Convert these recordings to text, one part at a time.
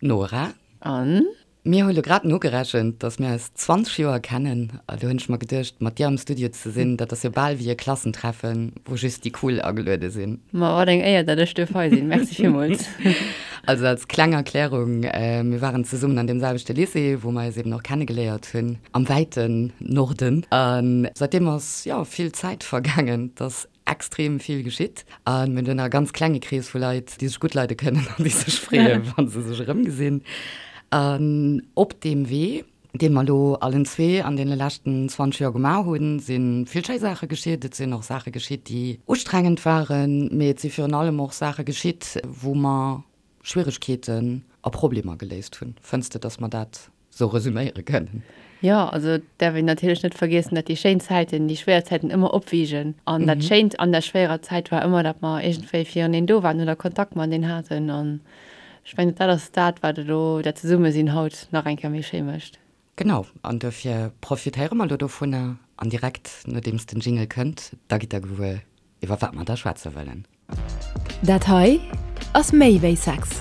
Nora. An? Mir hu lo grad nogerechent, dass mir eis 20 Joer kennen. A do hunn ech mer geduecht, mat dir am Studio ze sinn, dat ass jo bal wéi e Klassentreffen, wou just déi Cool ageluede sinn. Ma wat eng Éier, dat ech duerf hei sinn. Merci villmools. Also als kleng Erklärung, Mir waren zesummen an deem selwechte Lycée, wou mer eis eben och kennegeléiert hunn, am wäiten Norden. A säitdeem ass, jo, vill Zäit vergaangen. Et ass extrem vill geschitt a mir hunn e ganz klenge Krees vu Leit, déi sech gutt leide kënnen an déi sech freeën, wa se sech erëmgesinn. An op deem Wee, dee mer elo allen zwee an deene leschten 20 Joer gemaach hunn, si vill schéi Saache geschitt. Et sinn och Saache geschitt, déi ustrengend waren, mee et si virun allem och Saache geschitt, wou mer Schwieregkeeten a Problemer geléist hunn. Fënns de, dass mer dat sou resüméiere kënnen? Jo, also et däerf een natierlech net vergiessen, datt déi schéin Zäiten déi schwéier Zäiten ëmmer opwiegen. An dat Schéint an der schwéierer Zäit war ëmmer, datt mer iergendwéi fireneen do waren oder Kontakt mateneen haten. An ech mengen, dat ass dat, wat elo dat Zesummesinn haut nach eng Kéier méi schéi mécht. Genau, an dofir profitéiere mer elo dovunner an direkt nodeems den Jingle kënnt, da gitt der gewuer, iwwer wat mer da schwätze wëllen. Dat hei ass méi wéi Sex.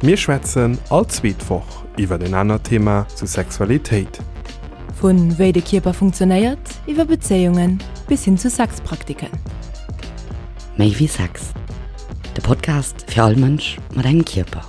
Mir schwätzen all zweet Woch iwwer en anert Thema zu Sexualitéit. Vu wéi de Kierper funktionéiert, iwwer Bezéiungen bis hin zu Sexpraktiken. Méi wéi Sex, de Podcast fir all Mënsch mat engem Kierper.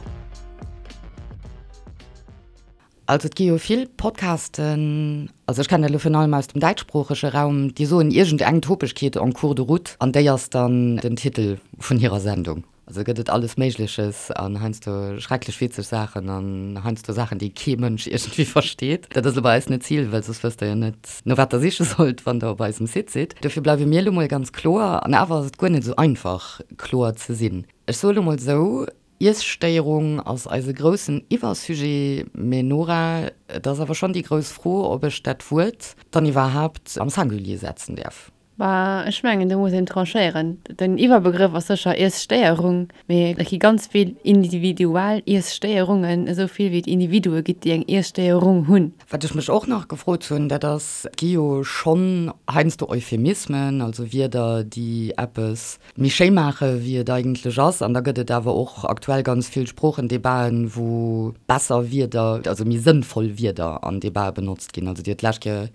Also et gi jo vill Podcasten, also ech kennen dat elo virun allem aus dem däitschsproochege Raum, déi soen iergend eng Topegkeet en cours de route an déi ass dann den Titel vun hirer Sendung. Also gëtt et alles Méigleches an heiansdo schrecklech witzeg Saachen an heiansdo Saachen, déi kee Mënsch iergendwéi versteet. Dat ass elo bei eis net d'Zil, well soss wësst der jo net, no wat der siche sollt, wann der op eisem Site sidd. Dofir bleiwe mir elo mol ganz kloer an awer ass et guer net esou einfach, kloer ze sinn. Ech soe elo mol esou, Iesstéierung ass eise groussen Iwwersujet, mee Nora, et ass awer schonn déi grouss Fro, ob ech dat Wuert dann iwwerhaapt am Singulier setzen däerf. Bah, ech mengen, do muss een tranchéieren. Den Iwwerbegrëff ass sécher Iesstéierung, mee et gi ganz vill individuell Iesstéierungen, esou vill wéi et Individue gitt, déi eng Iesstéierung hunn. Wat ech mech och nach gefrot hunn, dat ass, et gi jo schonn heiansdo Euphemismen, also Wierder, déi eppes méi schéi maache wéi et eigentlech ass. An da gëtt et awer och aktuell ganz vill Sproochendebaten, wou besser Wierder, also méi sënnvoll Wierder an Debatë benotzt ginn. Also Dir hutt d'lescht Kéier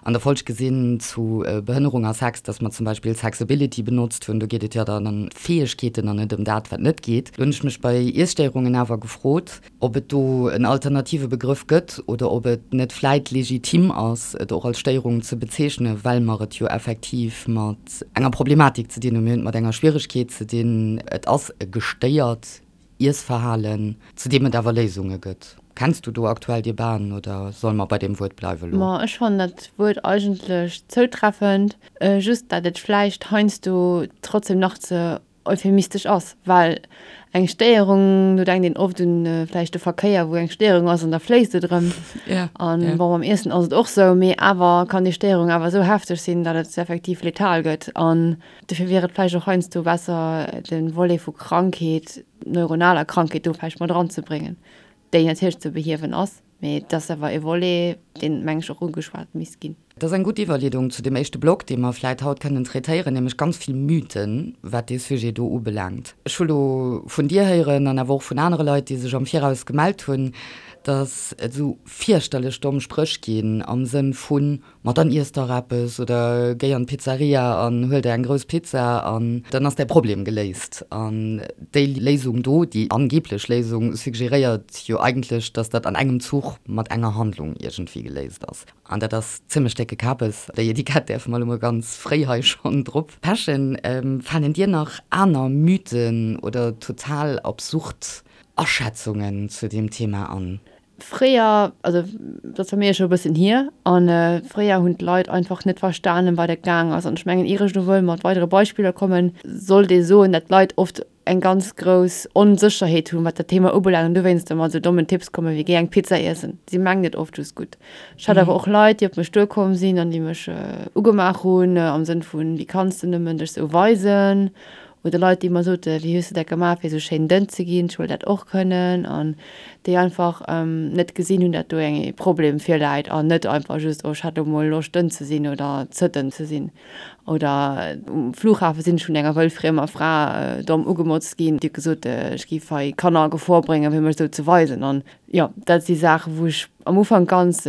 an der Folg gesinn zu Behënnerung a Sex, datt mer zum Beispill Sexability benotzt hunn. Do geet et jo dann ëm d'Fäegkeeten an net ëm dat, wat net geet. Do hunn ech mech bei Iesstéierungen awer gefrot, ob et do en alternative Begrëff gëtt oder ob et net vläit legitim ass, et och als Stéierung ze bezeechnen, well mer et jo effektiv mat enger Problematik ze dinn hunn, mir hunn et mat enger Schwieregkeet ze dinn, et ass e gestéiert Iessverhalen, zu deem et awer Léisunge gëtt. Kenns du do aktuell Debaten oder solle mer bei deem Wuert bleiwe lo? Ma ech fannen dat Wuert eigentlech zoutreffend, just dat et vläicht heiansdo trotzdem nach ze euphemistesch ass, well eng Stéierung, do denkt een oft un vläicht de Verkéier, wou eng Stéierung ass an da fléisst et erëm. An bon, beim Iessen ass et och sou, mee awer kann déi Stéierung awer esou hefteg sinn, datt et effektiv letal gëtt. An dofir wier et vläicht och heiansdo besser, de Volet vu Krankheet, neuronaler Krankheet do vläicht mat eranzebréngen, déi natierlech ze behiewen ass. Mee et ass awer e Volet, deen, meng ech, och ugeschwat misst ginn. Dat ass eng gutt Iwwerleedung zu dem éischte Block, dee mer vläit haut kënnen traitéieren, nämlech ganz vill Mythen, wat dee Sujet do ubelaangt. Ech hu lo vun dir héieren an awer och vun anere Leit, déi sech am Viraus gemellt hunn, dass et esou fierchterlech domm Spréch ginn am Sënn vun, Ma dann iess dach eppes oder géi an d'Pizzeria an huel der eng grouss Pizza an dann ass däi Problem geléist. An déi Léisung do, déi angeblech Léisung, suggeréiert jo eigentlech, dass dat an engem Zuch mat enger Handlung iergendwéi geléist ass. An dat ass zimmlech décke Kabes. Déi Etikett däerfe mer elo mol ganz fréi hei schonn drop pechen. Falen dir nach aner Mythen oder total absurd Aschätzungen zu deem Thema an? Fréier, also dat ass bei mir scho e bëssen hier, a fréier hunn d'Leit einfach net verstanen, wat et gaang ass. An ech mengen, ier ech elo wëll mat weidere Beispiller kommen, sollt ee soen, dat d'Leit oft eng ganz grouss Onsécherheet hunn, wat dat Thema ubelaangt an dowéinst mat esou dommen Tipps kommen, wéi géi eng Pizza iessen. Si mengen et oft just gutt. Ech hat awer och Leit, déi op mech duerkomm sinn an déi mech ugemaach hunn am Sënn vun, wéi kanns de nëmmen dech esou weisen? Oder Leit, déi mer soten, wéi hues de dat gemaach, fir esou schéin dënn ze ginn, ech wëll dat och kënnen. An déi einfach net gesinn hunn, dat do eng ee Problem virläit an net einfach just, oh ech hat elo mol Loscht dënn ze sinn oder ze dënn ze sinn. Oder um Flughafe sinn ech vun enger wëllfriemer Fra domm ugemotzt ginn, déi huet gesot, ech géif hei Kanner a Gefor bréngen, fir mech esou ze weisen. An jo, dat si Saachen, wou ech am Ufank ganz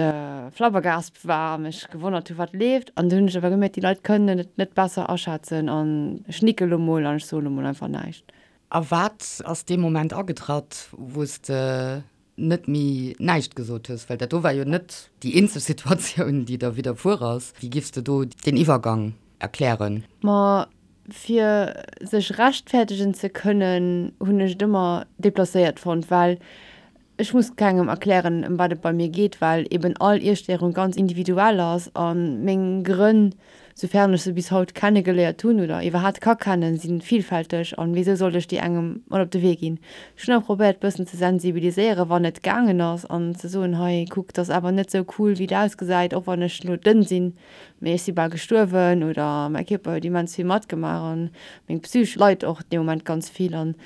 flabbergaspt war a mech gewonnert hu wat leeft. An dunn hunn ech awer gemierkt, déi Leit kënnen et net besser aschätzen an ech nicke lo mol an ech soe lo mol einfach näischt. A wat ass dee Moment agetratt, wou s de net méi näischt gesot hues? Well dat do war jo net déi eenzeg Situatioun, déi der widderfuer ass. Wéi giffs de do deen Iwwergang erklären? Ma fir sech rechtfäertegen ze kënnen, hunn ech et ëmmer deplacéiert fonnt, well ech muss kengem erklären, ëm wat et bei mir geet, well eben all Iesstéierung ganz individuell ass a meng Grënn, soufern ech se bis haut kenne geléiert hunn oder iwwerhaat ka kennen, si vielfälteg an wéisou sollt ech déi engem mat op de Wee ginn? Ech hunn awer probéiert bëssen ze sensibiliséieren, wann et gaangen ass an ze soen, hei kuck, 't ass awer net sou cool wéi et ausgesäit, och wann ech lo dënn sinn, mee ech si bal gestuerwen oder mäi Kierper huet immens vill matgemaach an meng Psych leit och dee Moment ganz vill an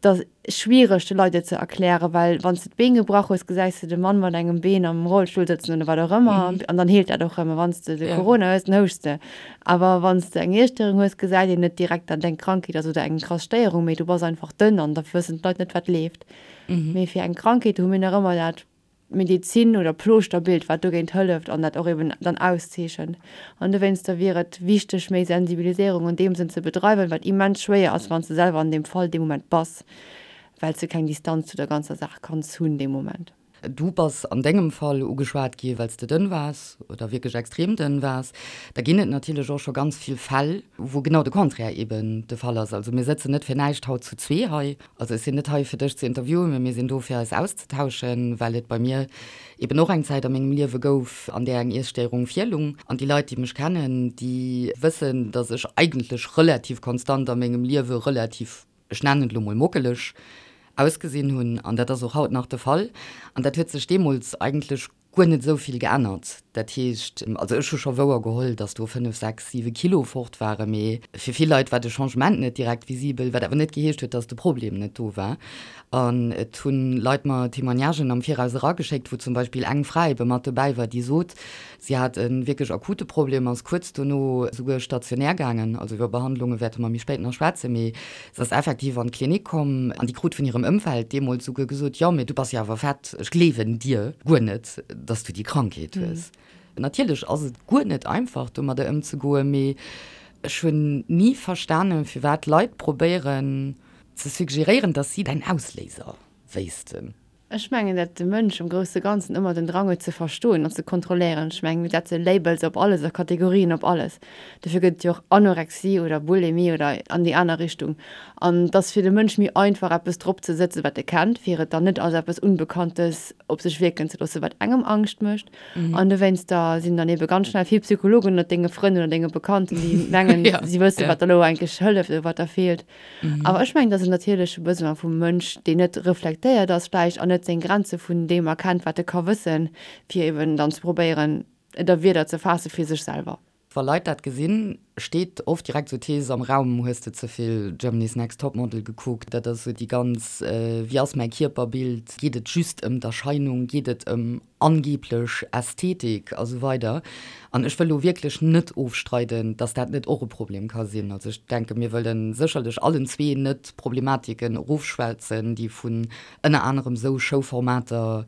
't ass schwiereg de Leit et ze erklären, well wann s de d'Been gebrach hues, gesäis de de Mann mat engem Been am Rollstull sëtzen oder wat och ëmmer an dann heelt dat och rëm. A wann s de de Corona hues, dann houschs de. Awer wann s de eng Iesstéierung hues, gesäit een net direkt, datt et eng Krankheet ass oder eng krass Stéierung, mee du bass einfach dënn an da wëssen d'Leit net, wat leeft. Mee fir eng Krankheet hu mir nach ëmmer dat Medezin oder Plooschter-Bild, wat dogéint hëlleft an dat och eben dann auszeechent. An dowéinster wier et wichteg, méi Sensibiliséierung an deem Sënn ze bedreiwen, wat immens schwéier ass, wann s de selwer an deem Fall dee Moment bass, well s de keng Distanz zu der ganzer Saach kanns hunn dee Moment. Du bass an dengem Fall ugeschwat gi well s de dënn waars oder wierklech extrem dënn waars. Da ginn et natierlech och scho ganz vill Fäll, wou genau de Contraire eben de Fall ass. Also mir sëtzen net fir näischt haut zu zwee hei. Also ech sinn net hei fir dech ze interviewen, mee mir sinn do fir eis auszetauschen, well et bei mir eben och eng Zäit a mengem Liewe gouf, an där eng Iesstéierung virlung. An déi Leit, déi mech kennen, déi wëssen, datt ech eigentlech relativ konstant a mengem Liewe relativ, ech nennen et elo mol mockeleg ausgesinn hunn. An dat ass och haut nach de Fall. An dat huet sech deemools eigentlech guer net esou vill geännert. Dat heescht, also ech hu scho wouer geholl, datt do 5, 6, 7 Kilo fort waren, mee fir vill Leit war de Changement net direkt visibel, wat awer net geheescht huet, datt de Problem net do war. An et hu Leit mer Témoignagen am Viraus erageschéckt, wou zum Beispill eng Fra ebe mat dobäi war, déi sot, si hat e wierklech akute Problem, ass kuerz dono souguer stationär gaangen, also iwwer Behandlunge wäerte mer méi spéit nach schwätzen, mee Se ass effektiv an d'Klinik komm an déi krut vun hirem Ëmfeld deemools souguer gesot, Jo, mee du bass jo awer fett, ech gleewen dir guer net, dass du déi Krankheet hues. Natierlech ass et guer net einfach, domadder ëmzegoen, mee ech hunn ni verstanen, firwat Leit probéieren ze suggeréieren, dass si däin Ausléiser wéissten. Ech mengen, dat de Mënsch am grousse Ganzen ëmmer den Drang huet ze verstoen an ze kontrolléieren. Ech mengen, mir setze Labels op alles a Kategorien op alles. Dofir gëtt et jo och Anorexie oder Bulimie oder an déi aner Richtung. An et ass fir de Mënsch méi einfach, eppes drop ze sëtzen, wat e kennt, fir et dann net als eppes Unbekanntes op sech wierken ze loossen, wat engem Angscht mécht. An dowéinster sinn dann ebe ganz schnell vill Psychologen ënnert denge Frënn oder denge Bekannten, déi mengen, si wësse wat der elo eigentlech hëlleft oder wat der feelt. Awer ech mengen, dat ass en natierleche Besoin vum Mënsch, deen net reflektéiert ass vläicht an net seng Grenze vun deem erkennt, wat e ka wëssen, fir eben dann ze probéieren, et a Wierder ze faasse fir sech selwer. Wa Leit dat gesinn, steet oft direkt esou d'Thees am Raum, Hues de ze vill Germany's Next Topmodel gekuckt? Dat ass esou déi ganz, Wéi ass mäi Kierperbild? Geet et just ëm d'Erscheinung? Geet et ëm angeblech Ästhetik a sou weider. An ech wëll elo wierklech net ofstreiden, dass dat net och e Problem ka sinn. Also ech denken, mir wëlle sécherlech allen zwee net Problematiken erofschwätzen, déi vun ënner anerem esou Showformater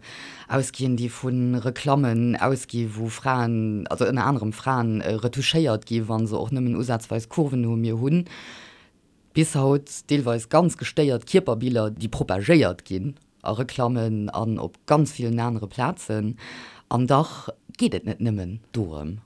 ausginn, déi vu Reklammen ausgi wou Fraen, also ënner anerem Fraen, retouchéiert gi wa se och nëmmen usazweis Kurven hu. Mir hunn bis haut deelweis ganz gestéiert Kierperbiller, déi propagéiert ginn a Reklammen an op ganz villen anere Plazen. An dach geet et net nëmmen dorëm.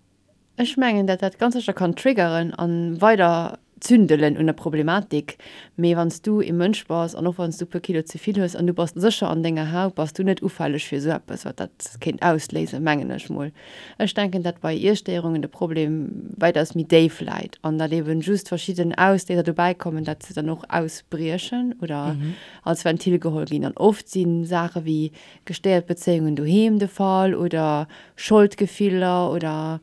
Ech mengen, dat dat ganz sécher kann triggeren a weider zündelen un der Problematik. Mee wann s du ee Mënsch bass an och wann s du e puer Kilo ze vill hues an du bass sécher an denger Haut, bass du net ufälleg fir esou eppes, wat dat kéint ausléisen, mengen ech mol. Ech denken, datt bei Iesstéierungen de Problem wäitaus méi déif läit an datt eben just verschidden Ausléiser dobäi kommen, datt se dann och ausbriechen oder als Ventil geholl ginn. An oft si Saache wéi gestéiert Bezéiungen doheem de Fall oder Scholdgefiller oder.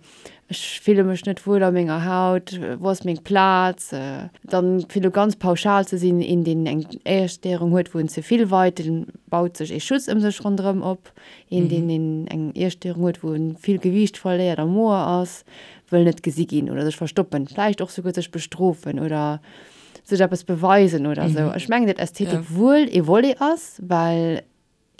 Ech fille mech net wuel a menger Haut, wou ass meng Plaz? Dann, fir elo ganz pauschal ze sinn, een, deen eng Iesstéierung huet, wou en ze vill weit, dee baut sech ee Schutz ëm sech ronderëm op. Een, deen eng Iesstéierung huet, wou en vill Gewiicht verléiert a moer ass, wëll net gesi ginn oder sech verstoppen, vläicht och souguer sech bestrofen oder sech eppes beweisen oder esou. Ech mengen, datt Ästhetik wuel ee Volet ass, well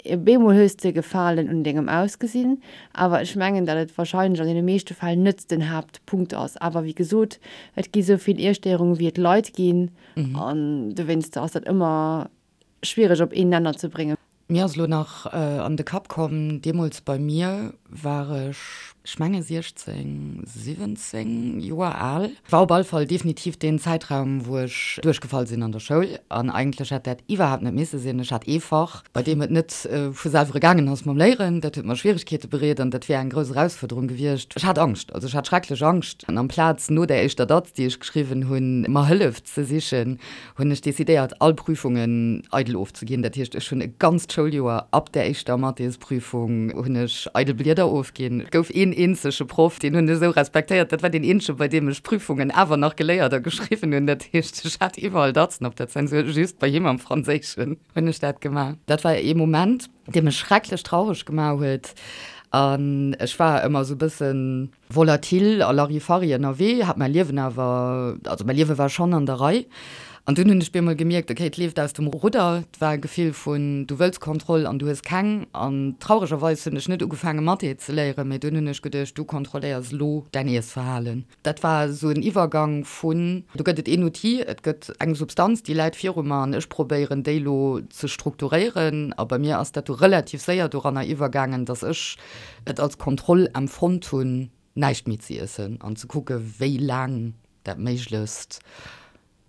Op eemol hues de Gefalen un dengem Ausgesinn, awer ech mengen, datt et wahrscheinlech an deene meeschte Fäll net den Haaptpunkt ass. Awer wéi gesot, et gi sou vill Iesstéierungen, wéi et Leit ginn, an dowéinster ass dat ëmmer schwiereg op een Nenner ze bréngen. Mir ass elo nach an de Kapp komm, deemools bei mir war ech, ech menge 16, 17 Joer al. War op all Fall definitiv deen Zäitraum, wou ech duerchgefall sinn an der Schoul. An eigentlech hätt dat iwwerhaapt net misse sinn. Ech hat ee Fach, bei deem et net vu selwer gaangen ass mam Léieren. Dat huet mer Schwieregkeete bereet an dat wär eng grouss Erausfuerderung gewiescht. Ech hat Angscht, also ech hat schrecklech Angscht. An amplaz no där éischter Datz, déi ech geschriwwen hunn, mer Hëllef ze sichen, hunn ech decidéiert, all Prüfungen eidel ofzeginn. Dat heescht, ech hunn e ganzt Schouljoer ab der éischter Mathésprüfung hunn ech eidel Blieder ofginn. Et gouf een eenzege Proff, deen hunn ech esou respektéiert, dat war deen eenzege, bei deem ech Prüfungen awer nach geléiert a geschriwwen hunn. Dat heescht, ech hat iwwerall Datzen op der Zensur, just bei him am Franséischen hunn ech dat gemaach. Dat war ee Moment, dee mech schrecklech traureg gemaach huet an ech war ëmmer esou e bëssen, Volatil a Larifari ënnerwee, hat mäi Liewen awer, also mäi Liewe war schonn an der Rei. An dunn hunn ech bemol gemierkt, okay, et leeft aus dem Rudder. Et war e Gefill vun, du wëlls Kontroll an du hues keng. An trauregerweis hunn ech net ugefaange Mathé ze léieren, mee dunn hunn ech geduecht, du kontrolléiers elo däin Iessverhalen. Dat war esou en Iwwergang vun, do gëtt et een Outil, et gëtt eng Substanz, déi läit viru mer an ech probéieren déi elo ze strukturéieren. A bei mir ass dat du relativ séier doranner iwwergaangen, dass ech et als Kontroll empfonnt hunn, näischt méi ze iessen an ze kucke wéi laang dat méiglechst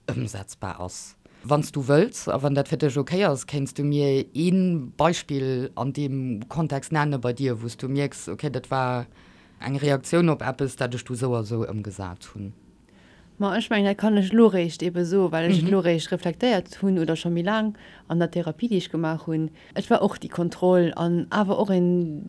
ëmsetzbar ass. Wann s du wëlls a wann dat fir dech ok ass, kéints du mir ee Beispill an deem Kontext nenne bei dir, wou s du mierks, ok, dat war eng Reaktioun op eppes, dat ech du sou a sou ëmgesat hunn. Ma ech mengen, dat kann ech elo réischt eebe soen, well ech et elo réischt reflektéiert hunn oder scho méi laang an der Therapie, déi ech gemaach hunn. Et war och déi Kontroll an awer och een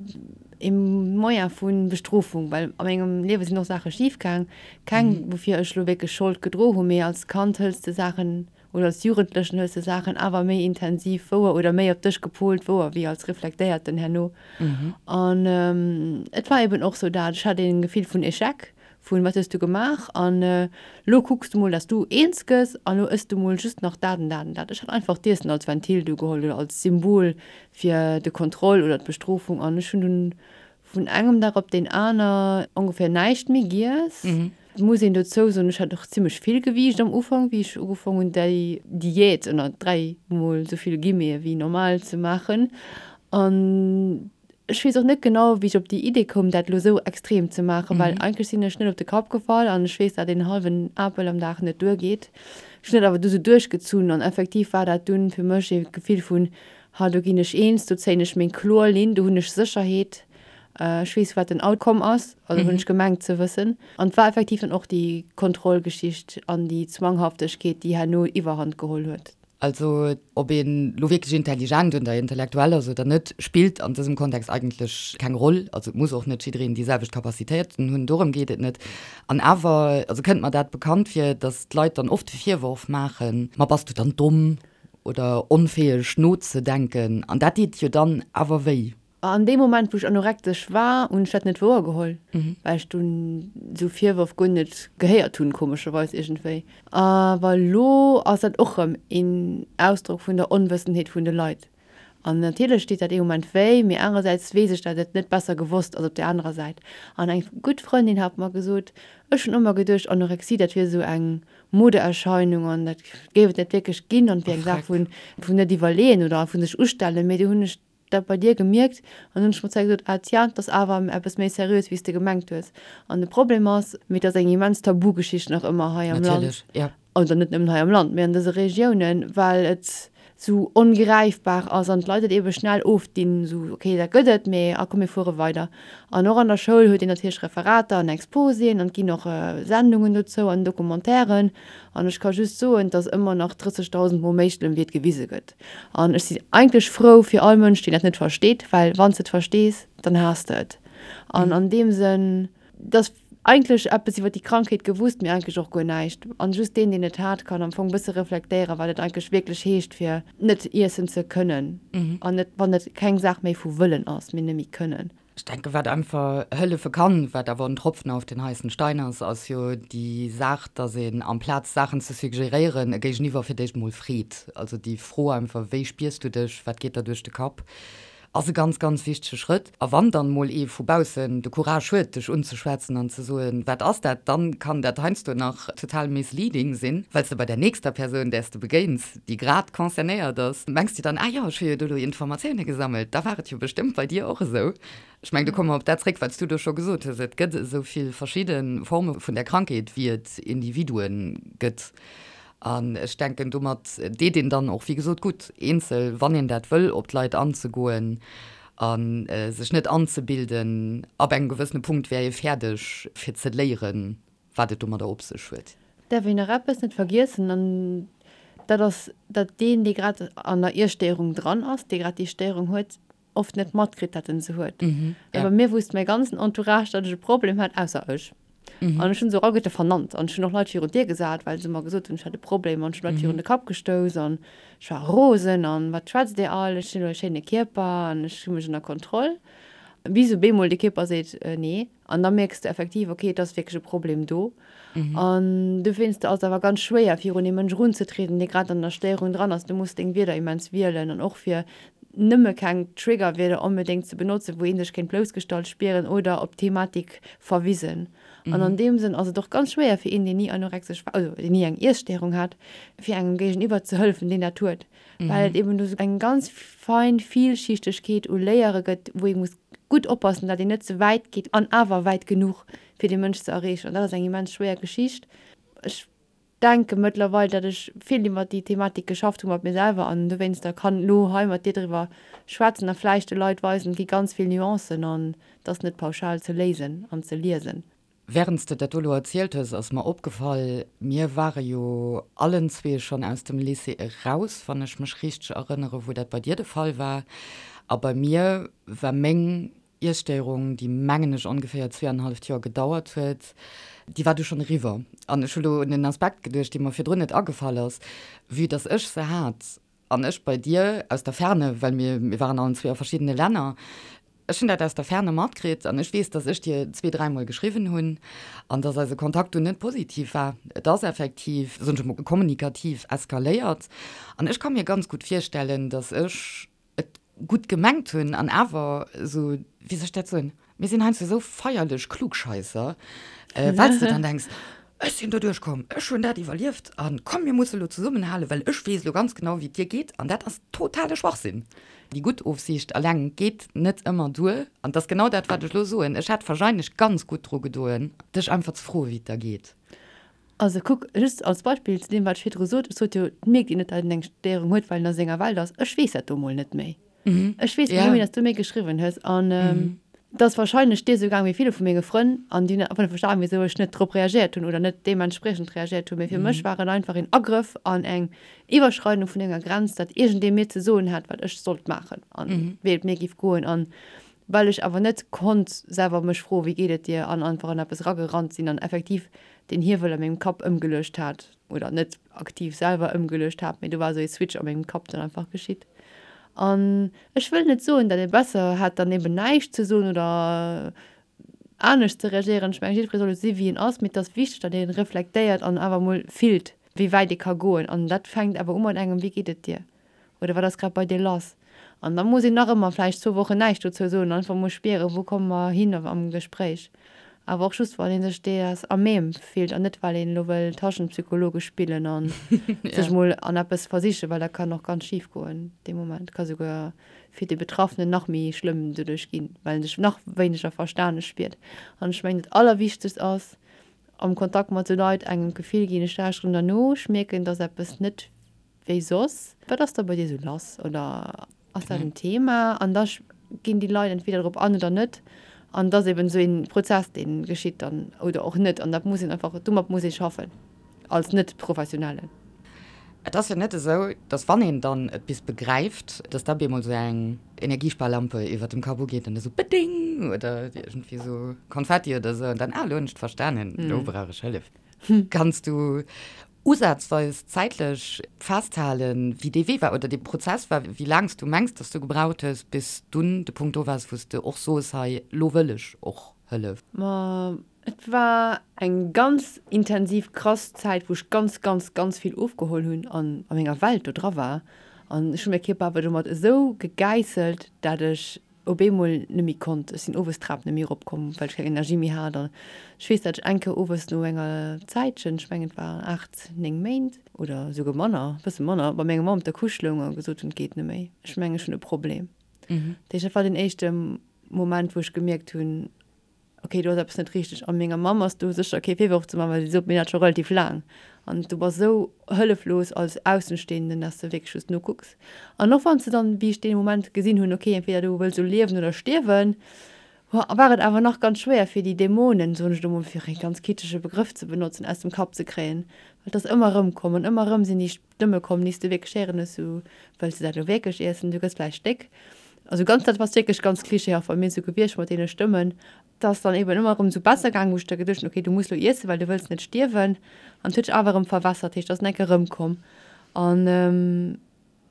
ee Moyen vu Bestrofung, well a mengem Liewe sinn och Saache schif gaang, keng, woufir ech elo wierklech Schold gedro hunn, mee als Kand hëls de Saachen oder als Jugendlechen hues de Saachen awer méi intensiv wouer oder méi op dech gepolt wouer wéi als Reflektéierten herno. An et war eben och sou dat, ech hat een Gefill vun Echec, vun wat hues du gemaach an lo kucks du mol dass du eens gëss an lo ëss du mol just nach dat an dat an dat. Ech hat einfach d'Iessen als Ventil du geholl oder als Symbol fir de Kontroll oder d'Bestrofung an ech hunn dunn vun engem Dag op deen aner ongeféier näischt méi giess. Et muss een dozou soen, ech hat och zimmlech vill Gewiicht am Ufank, wéi ech ugefaang hunn déi Diät ënner 3 mol esou vill Guillemete wéi normal ze maachen. An ech weess och net genau, wéi ech op déi Idee koum, dat elo esou extrem ze maachen, well eigentlech sinn ech net op de Kapp gefall an ech weess, dat een hallwen Apel am Dag net duergeet. Ech hunn dat awer du sou duerchgezunn an effektiv war dat dunn fir mech ee Gefill vun, Ha, do ginn ech eens, do zéien ech meng kloer Linn, do hunn ech Sécherheet, ech weess, wat den Outcome ass, also hunn ech gemengt ze wëssen. An et war effektiv dann och déi Kontrollgeschicht an déi Zwanghaftegkeet, déi herno Iwwerhand geholl huet. Also ob een elo wierklech intelligent oder intellektuell ass oder net, spillt an dësem Kontext eigentlech keng Roll. Also et muss och net jiddereen déi selwecht Capacitéiten hunn, dorëm geet et net. An awer, also kënnt mer dat bekannt vir, datt d'Leit dann oft de Virworf maachen, ma bass du dann domm? Oder onfäeg nozedenken. An dat deet jo dann awer wéi. An deem Moment, wou ech anorektesch war, hunn ech dat net wouer geholl, well ech dunn esou Virwërf guer net gehéiert hunn, komescherweis iergendwéi. Awer elo ass dat och erëm een Ausdrock vun der Onwëssenheet vun de Leit. An natierlech deet dat ee Moment wéi, mee anerersäits weess ech, dat et net besser gewosst ass op där anerer Säit. An eng gutt Frëndin hat mer gesot, ech hunn ëmmer geduecht, Anorexie, dat wier esou eng Modeerscheinung an dat géif et net wierklech ginn an et wier eng Saach vun vun net iwwerleeën oder vu sech ustellen. Mee du hunn ech dat bei dir gemierkt an hunn ech mer zwar gesot, ah tiens, et ass awer eppes méi seriös wéi s de gemengt hues. An de Problem ass, mee et ass eng immens Tabugeschicht nach ëmmer hei am Land, Natierlech, ja. oder net nëmmen hei am Land, mee an dëse Regiounen, well et sou ongräifbar ass an d'Leit et ebe schnell ofdinn, sou ok, dat gëtt et, mee a komm mir fuere weider. An och an der Schoul huet een natierlech Referater an Exposéen an et ginn och Sendungen dozou an Documentairen. An ech ka just soen, et ass ëmmer nach 30.000 Mol méi schlëmm wéi et gewise gëtt. An ech sinn eigentlech frou fir all Mënsch, deen dat net versteet, well wann s de et verstees, dann haass de et. An an deem Sënn, et ass. Eigentlech eppes iwwer déi Krankheet gewusst, mee eigentlech och guer näischt. An just deen, deen et hat, kann am Fong bësse reflektéieren, wat et eigentlech wierklech heescht, fir net iessen ze kënnen. An net, wann et keng Saach méi vu wëllen ass, mee nëmme kënnen. Ech denken, wat einfach hëllefe kann, wat awer en Tropfen auf den heißen Stein ass, ass jo déi Saach, dass een amplaz Saachen ze suggeréieren, e Géigeniwwer fir d'éischt emol freet. Also déi Fro einfach, Wéi spiers du dech? Wat geet der duerch de Kapp? Ass e ganz, ganz wichtege Schrëtt. A wann dann emol ee vu baussen de Courage huet, dech unzeschwätzen an ze soen, Wat ass dat? Dann kann dat heiansdo nach total misleading sinn, well s de bei der nächster Persoun, där s de begéins, déi grad concernéiert ass, mengs de dann, Ah jo, ech hu jo do elo Informatioune gesammelt, da war et jo bestëmmt bei dir och esou. Ech mengen, do komme mer op dat zréck, wat s du do scho gesot hues, Et gëtt esou vill verschidde Forme vun där Krankheet, wéi et Individue gëtt. An ech denken, domat deet een dann och, wéi gesot, gutt, eenzel, wann een dat wëll, op d'Leit anzegoen a sech net anzebilden, ab engem gewëssene Punkt wär ee fäerdeg, fir ze léieren, wat et domadder op sech huet. Däerf een nach eppes net vergiessen, an dat ass, datt deen, dee grad an der Iesstéierung dran ass, dee grad déi Stéierung huet, oft net matkritt, datt en se huet. Well bei mir wusst mäi ganzen Entourage, datt ech e Problem hat, ausser ech. An ech hunn se och alleguerte vernannt. An ech hunn och Leit virun d'Dier gesat, well se mer gesot hunn, ech hätt e Problem. An ech hunn Leit virun de Kapp gestouss an ech war rosen an wat schwätzt Dir all, ech hunn elo e schéine Kierper an ech hu mech ënner Kontroll. Bis op eemol de Kierper seet, nee. An da mierks de effektiv, okay, et ass wierklech e Problem do. An dowéinster ass et awer ganz schwéier, virun ee Mënsch erunzetrieden, dee grad an der Stéierung dran ass. Du muss deng Wierder immens wielen an och fir nëmme keng Triggerwierder onbedéngt ze benotzen, wou ee sech kéint bloussgestallt spieren oder op d'Thematik verwisen. An an deem Sënn ass et och ganz schwéier fir een, deen ni anorexesch war, also deen ni eng Iesstéierung hat, fir engem Géigeniwwer ze hëllefen, deen dat huet, well et eben do sou eng ganz fein Vielschichtegkeet u Layere gëtt, wou ee muss gutt oppassen, datt een net ze wäit geet an awer wäit genuch, fir dee Mënsch ze erreechen. An dat ass eng immens schwéier Geschicht. Ech denke mëttlerweil, datt ech vill iwwer déi Thematik geschafft hu mat mir selwer an dowéinster kann elo hei mat dir driwwer schwätzen a vläicht de Leit weisen, et gi ganz vill Nuancen an et ass net pauschal ze léisen an ze liesen. Während s de dat do elo erzielt hues, ass mer opgefall, mir ware jo allen zwee schonn aus dem Lycée eraus, wann ech mech richteg erënnere wou dat bei dir de Fall war. A bei mir war meng Iesstéierung, déi mengen ech ongeféier zweeanenhalleft Joer gedauert huet, déi war du schonn eriwwer. An ech hu lo un en Aspekt geduecht, dee mer virdrun net agefall ass, Vue dass ech se hat an ech bei dir aus der Ferne, well mir, mir waren allen zwee a verschiddene Länner, ech hunn dat aus der Ferne matkritt an ech weess, dass ech dir zwee, dräimol geschriwwen hunn an dass eise Kontakt dunn net positiv war. Et ass effektiv, soen ech emol, kommunikativ eskaléiert an ech ka mir ganz gutt virstellen, dass ech et gutt gemengt hunn an awer esou, wéi soll ech dat soen, mir sinn heiansdo esou feierlech Klugscheisser, well s de dann denks, ech sinn do duerchkomm, ech hunn dat iwwerlieft a komm mir musse lo zesummenhalen, well ech weess elo ganz genau wéi et dir geet an dat ass totale Schwachsinn. Déi gutt Ofsiicht eleng geet net ëmmer duer an et ass genau dat wat ech elo soen, ech hätt wahrscheinlech ganz gutt dru gedoen, dech einfach ze froen, wéi et der geet. Also kuck, just als Beispill zu deem, wat ech virdru sot, ech sot jo, et mierkt een net, datt een eng Stéierung huet, well en a senger Welt ass. Ech weess dat do mol net méi. Ech weess net méi, datt s du mir geschriwwen hues. An et ass wahrscheinlech dir esou gaang wéi ville vu menge Frënn an déi hunn einfach net verstanen, wisou ech net drop reagéiert hunn oder net deementspriechend reagéiert hunn. Mee fir mech war et einfach een Agrëff an eng Iwwerschreidung vun enger Grenz, datt iergendee mir ze soen hat, wat ech sollt maachen an wéi et mir géif goen. An well ech awer net konnt selwer mech froen, wéi geet et dir, an einfach an eppes eragerannt sinn an effektiv den Hiewel a mengem Kapp ëmgeluecht hat, oder net aktiv selwer ëmgeluecht hat, mee do war esou ee Switch a mengem Kapp dann einfach geschitt. An ech wëll net soen, datt ee besser hätt dann eben näischt ze soen oder anescht ze reagéieren. Ech mengen, jiddweree soll esou si wéi en ass, mee et ass wichteg, datt ee reflektéiert an awer emol fillt, wéi wäit ee ka goen. An dat fänkt awer u mat engem, Wéi geet et dir? Oder wat ass grad bei dir lass? An da muss een nach ëmmer vläicht zwou Wochen näischt dozou soen, einfach mol spieren, wou komme mer hin am Gespréich. Awer och just, wann ee sech dees à même fillt an net well een elo wëll Taschenpsychologe spillen a sech mol an eppes versichen, well dat kann och ganz schif goen dee Moment, ka souguer fir de Betraffenen nach méi schlëmm doduerch ginn, well en sech nach wéineger verstane spiert. An ech mengen, dat Allerwichtegst ass am Kontakt mat esou Leit, engem d'Gefill ginn, ech lauschteren der no, ech mierken, dass eppes net wéi soss. Wat ass da bei dir sou lass oder ass dat en Thema? An da ginn déi Leit entweder drop an oder net. An et ass eben esou ee Prozess, dee geschitt dann oder och net. An dat muss een einfach, domat muss ee schaffen als Net-Professionellen. Et ass jo net esou, dass wann een dann et bis begräift, dass da bemol esou eng Energiesparlampe iwwert dem Kapp ugeet an da sou beding oder iergendwéi sou Konfetti oder sou an dann, ah, elo hunn ech et verstanen, elo brauch ech Hëllef. Kanns du usazweis zäitlech festhalen, wéi dee Wee war oder dee Prozess war, wéi laang s du mengs, dass du gebraucht hues, bis dunn de Punkt do waars, wou s de och soos, hei, elo wëll ech och Hëllef? Ma et war eng ganz intensiv, krass Zäit, wou ech ganz, ganz, ganz vill ofgeholl hunn an a menger Welt do dra war. An ech hunn mäi Kierper awer domat esou gegäisselt, dat ech op eemol net méi konnt. Ech sinn owes d'Trap net méi eropkomm, well ech keng Energie méi hat. An ech weess, dat ech eng Kéier owes no enger Zäitchen, ech mengen et waren 8, 9 Méint oder esouguer manner, e bësse manner, bei menger Mamm op der Couche loung a gesot hunn, et geet net méi, ech mengen ech hunn e Problem. Dat heescht, dat war den éischte Moment, wou ech gemierkt hunn, ok, do ass eppes net richteg. A menger Mamm ass do sécher kee Virworf ze maachen, well si sot mir dat scho relativ laang. An du bass esou hëlleflos als Aussenstehenden, dass de wierklech just nokucks. An och wann s de dann, wéi ech dee Moment gesinn hunn, ok, entweder du wëlls elo liewen oder stierwen, war et awer nach ganz schwéier, fir déi Dämonen, soen ech elo mol, fir ee ganz kitschege Begrëff ze benotzen, aus dem Kapp ze kréien. Well et ass ëmmer erëm komm an ëmmer erëm sinn déi Stëmme komm, déi s de wierklech héieren hues, sou, Wëlls de dat elo wierklech iessen? Du gëss vläicht déck. Also ganz, dat ass wierklech ganz klischeehaft bei mir sou gewiescht mat deene Stëmmen. Et ass dann eben ëmmer erëm sou besser gaangen, wou ech da geduecht hunn, okay, du muss elo iessen, well du wëlls net stierwen. An et huet sech awer erëm verwässert, heescht, et ass enke erëmkomm. An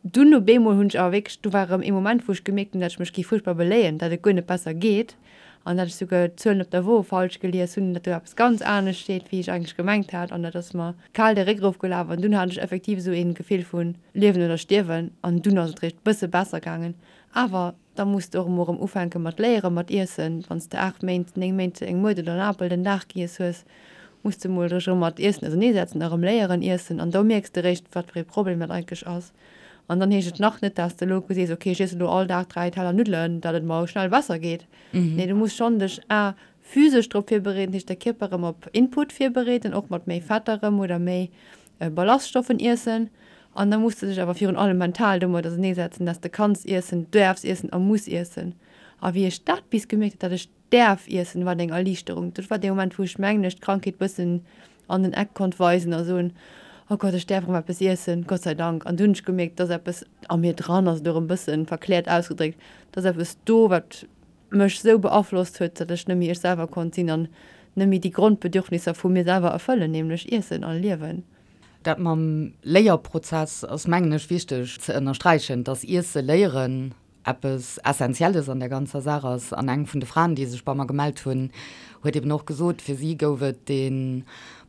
dunn op eemol hunn ech awer wierklech, do war erëm ee Moment, wou ech gemierkt hunn, dat ech mech géif fuerchtbar beléien, dat et guer net besser geet an dat ech souguer d'Zuelen op der Wo falsch gelies hunn, dat do eppes ganz anescht steet, wéi ech eigentlech gemengt hat. An dat ass mer kal de Réck erofgelaf an dunn hat ech effektiv esou een Gefill vun Liewen oder Stierwen an dunn ass et réischt bësse besser gaangen. Awer da muss de och emol erëm ufänke mat léieren, mat iessen. Wann s de 8 Méint, 9 Méint eng Muert oder en Apel den Dag giess hues, muss de mol dech erëm mat Iessen auserneesetzen a erëm léieren iessen an do mierks de réischt, wat fir ee Problem dat eigentlech ass. An dann heescht et nach net, dass de elo sees, ok ech iessen elo all Dag 3 Teller Nuddelen, datt et mer schnell besser geet. Nee, du muss schonn dech a Physesch drop virbereeden, heescht de Kierper erëm op Input virbereeden, och mat méi Fett erëm oder méi Ballaststoffen iessen. An da muss de dech awer virun allem mental domat auserneesetzen, dass de kanns iessen, däerfs iessen a muss iessen. A wéi ech dat bis gemierkt hunn, dat ech däerf iessen, war et eng Erliichterung. Dat war dee Moment, wou ech mengen ech d'Krankheet bëssen an den Eck konnt weisen a soen, Oh Gott, ech däerf erëm eppes iessen, Gott sei Dank. An dunn hunn ech gemierkt, dass eppes a mir dran ass, elo erëm bëssen verkläert ausgedréckt, dass eppes do, wat mech sou beaflosst huet, datt ech net méi ech selwer konnt sinn an net méi déi Grondbedürfnisser vu mir selwer erfëllen, nämlech Iessen a Liewen. Dat mam Léierprozess ass, mengen ech, wichteg ze ënnersträichen, dass Iesse léieren eppes Essentielles an der ganzer Saach ass. An eng vun de Fraen, déi sech bei mer gemellt hunn, huet eben och gesot, fir si gouf et dee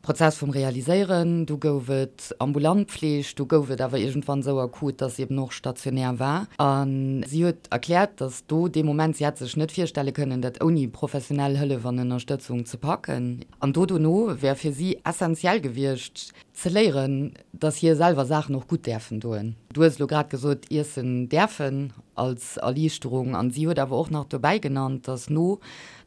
Prozess vum Realiséieren, du gouf et ambulant Pfleg, du gouf et awer iergendwann esou akut, dass si eben och stationär war. A si huet erkläert, dass do dee Moment, si hätt sech net virstelle kënnen, dat ouni professionell Hëllef an Ënnerstëtzung ze packen. An do dono wär fir si essentiell gewiescht, ze léieren, dass hir selwer Saachen och gutt däerfen doen. Du hues elo grad gesot, iessen däerfen als Erliichterung. An si huet awer och nach dobäi genannt, dass no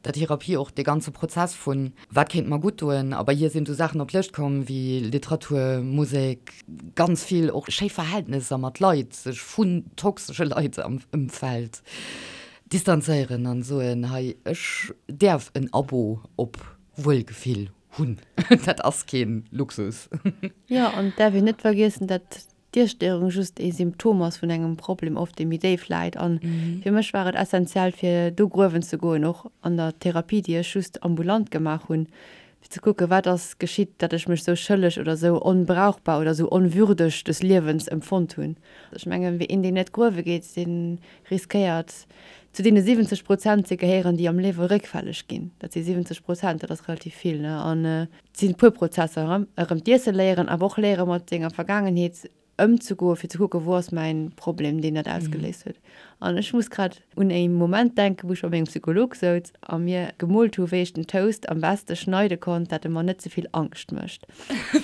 der Therapie och dee ganze Prozess vun Wat kéint mer gutt doen? A bei hir sinn du Saachen op d'Lëscht komm wéi Literatur, Musek, ganz vill och schéi Verhältnesser mat Leit, sech vun toxesche Leit am Ëmfeld distanzéieren an soen, hei ech däerf en Abo op Wuelgefill hunn, dat ass keen Luxus. Jo, an et däerf een net vergiessen, dat d'Iesstéierung just ee Symptom ass vun engem Problem oft, dee méi déif läit. A fir mech war et essentiell, fir do gruewen ze goen, och an der Therapie, déi ech just ambulant gemaach hunn, fir ze kucken, wat ass geschitt, datt ech mech sou schëlleg oder sou onbrauchbar oder sou onwürdeg des Liewens empfonnt hunn. Ech mengen, een, deen net gruewe geet, dee riskéiert, zu deene 70 Prozent ze gehéieren, déi am Liewe réckfälleg ginn. Dat si 70 Prozent, dat ass relativ vill, ne? An Et sinn e puer Prozesser, erëm d'Iesse léieren, awer och léiere mat senger Vergaangenheet ëmzegoen, fir ze kucken, wou ass mäin Problem, deen dat ausgeléist huet. An ech muss grad un e Moment denken, wou ech bei mengem Psycholog souz a mir gemoolt hu wéi ech den Toast am beste schneide konnt, dat e mer net ze vill Angscht mécht.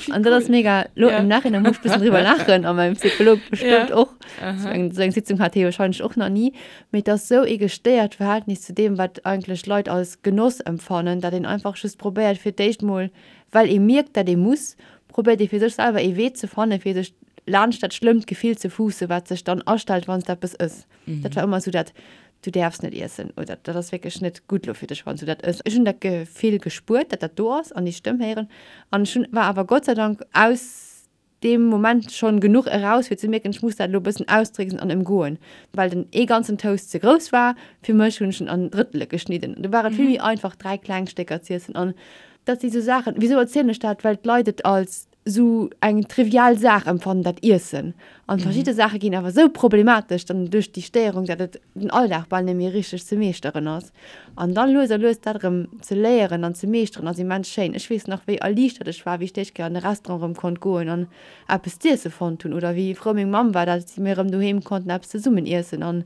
An dat ass mega, lo im Nachhinein muss ech bëssen driwwer laachen a mäin Psycholog bestëmmt och. Ech mengen, esou eng Sitzung hat hie wahrscheinlech och nach ni. Mee et ass esou ee gestéiert Verhältnis zu deem, wat eigentlech Leit als Genoss empfannen, dat een einfach just probéiert fir d'éischt mol, well ee mierkt, dat ee muss, probéiert ee fir sech selwer ee Wee ze fannen, fir sech laanscht dat schlëmmt Gefill ze fuussen, wat sech dann astellt, wann s de eppes ëss. Dat war ëmmer esou dat, Du däerfs net iessen oder dat ass wierklech net gutt elo fir dech, wann s du dat ëss. Ech hunn dat Gefill gespuert, dat dat do ass an déi Stëmm héieren an ech hunn, war awer Gott sei Dank aus. deem Moment schonn genuch eraus fir ze mierken, ech muss dat elo e bëssen austricksen an ëmgoen. Well den ee ganzen Toast ze grouss war fir mech, hunn ech en an Drëttele geschnidden. Du war et vill méi einfach 3 kleng Stécker z'iessen. An dat si sou Saachen, wisou erzielen ech dat? Well d'Leit et als sou eng trivial Saach empfannen, dat Iessen. An verschidde Saache ginn awer sou problematesch dann duerch déi Stéierung, dat et den Alldag bal net méi richteg ze meeschteren ass. An dann lues a lues dat erëm ze léieren an ze meeschteren ass immens schéin. Ech weess nach wéi erliichtert ech war, wéi ech d'éischt Kéier an e Restaurant erëm konnt goen an eppes z'iesse fonnt hunn oder wéi frou meng Mamm war, dat mir erëm doheem konnten eppes zesummen iessen an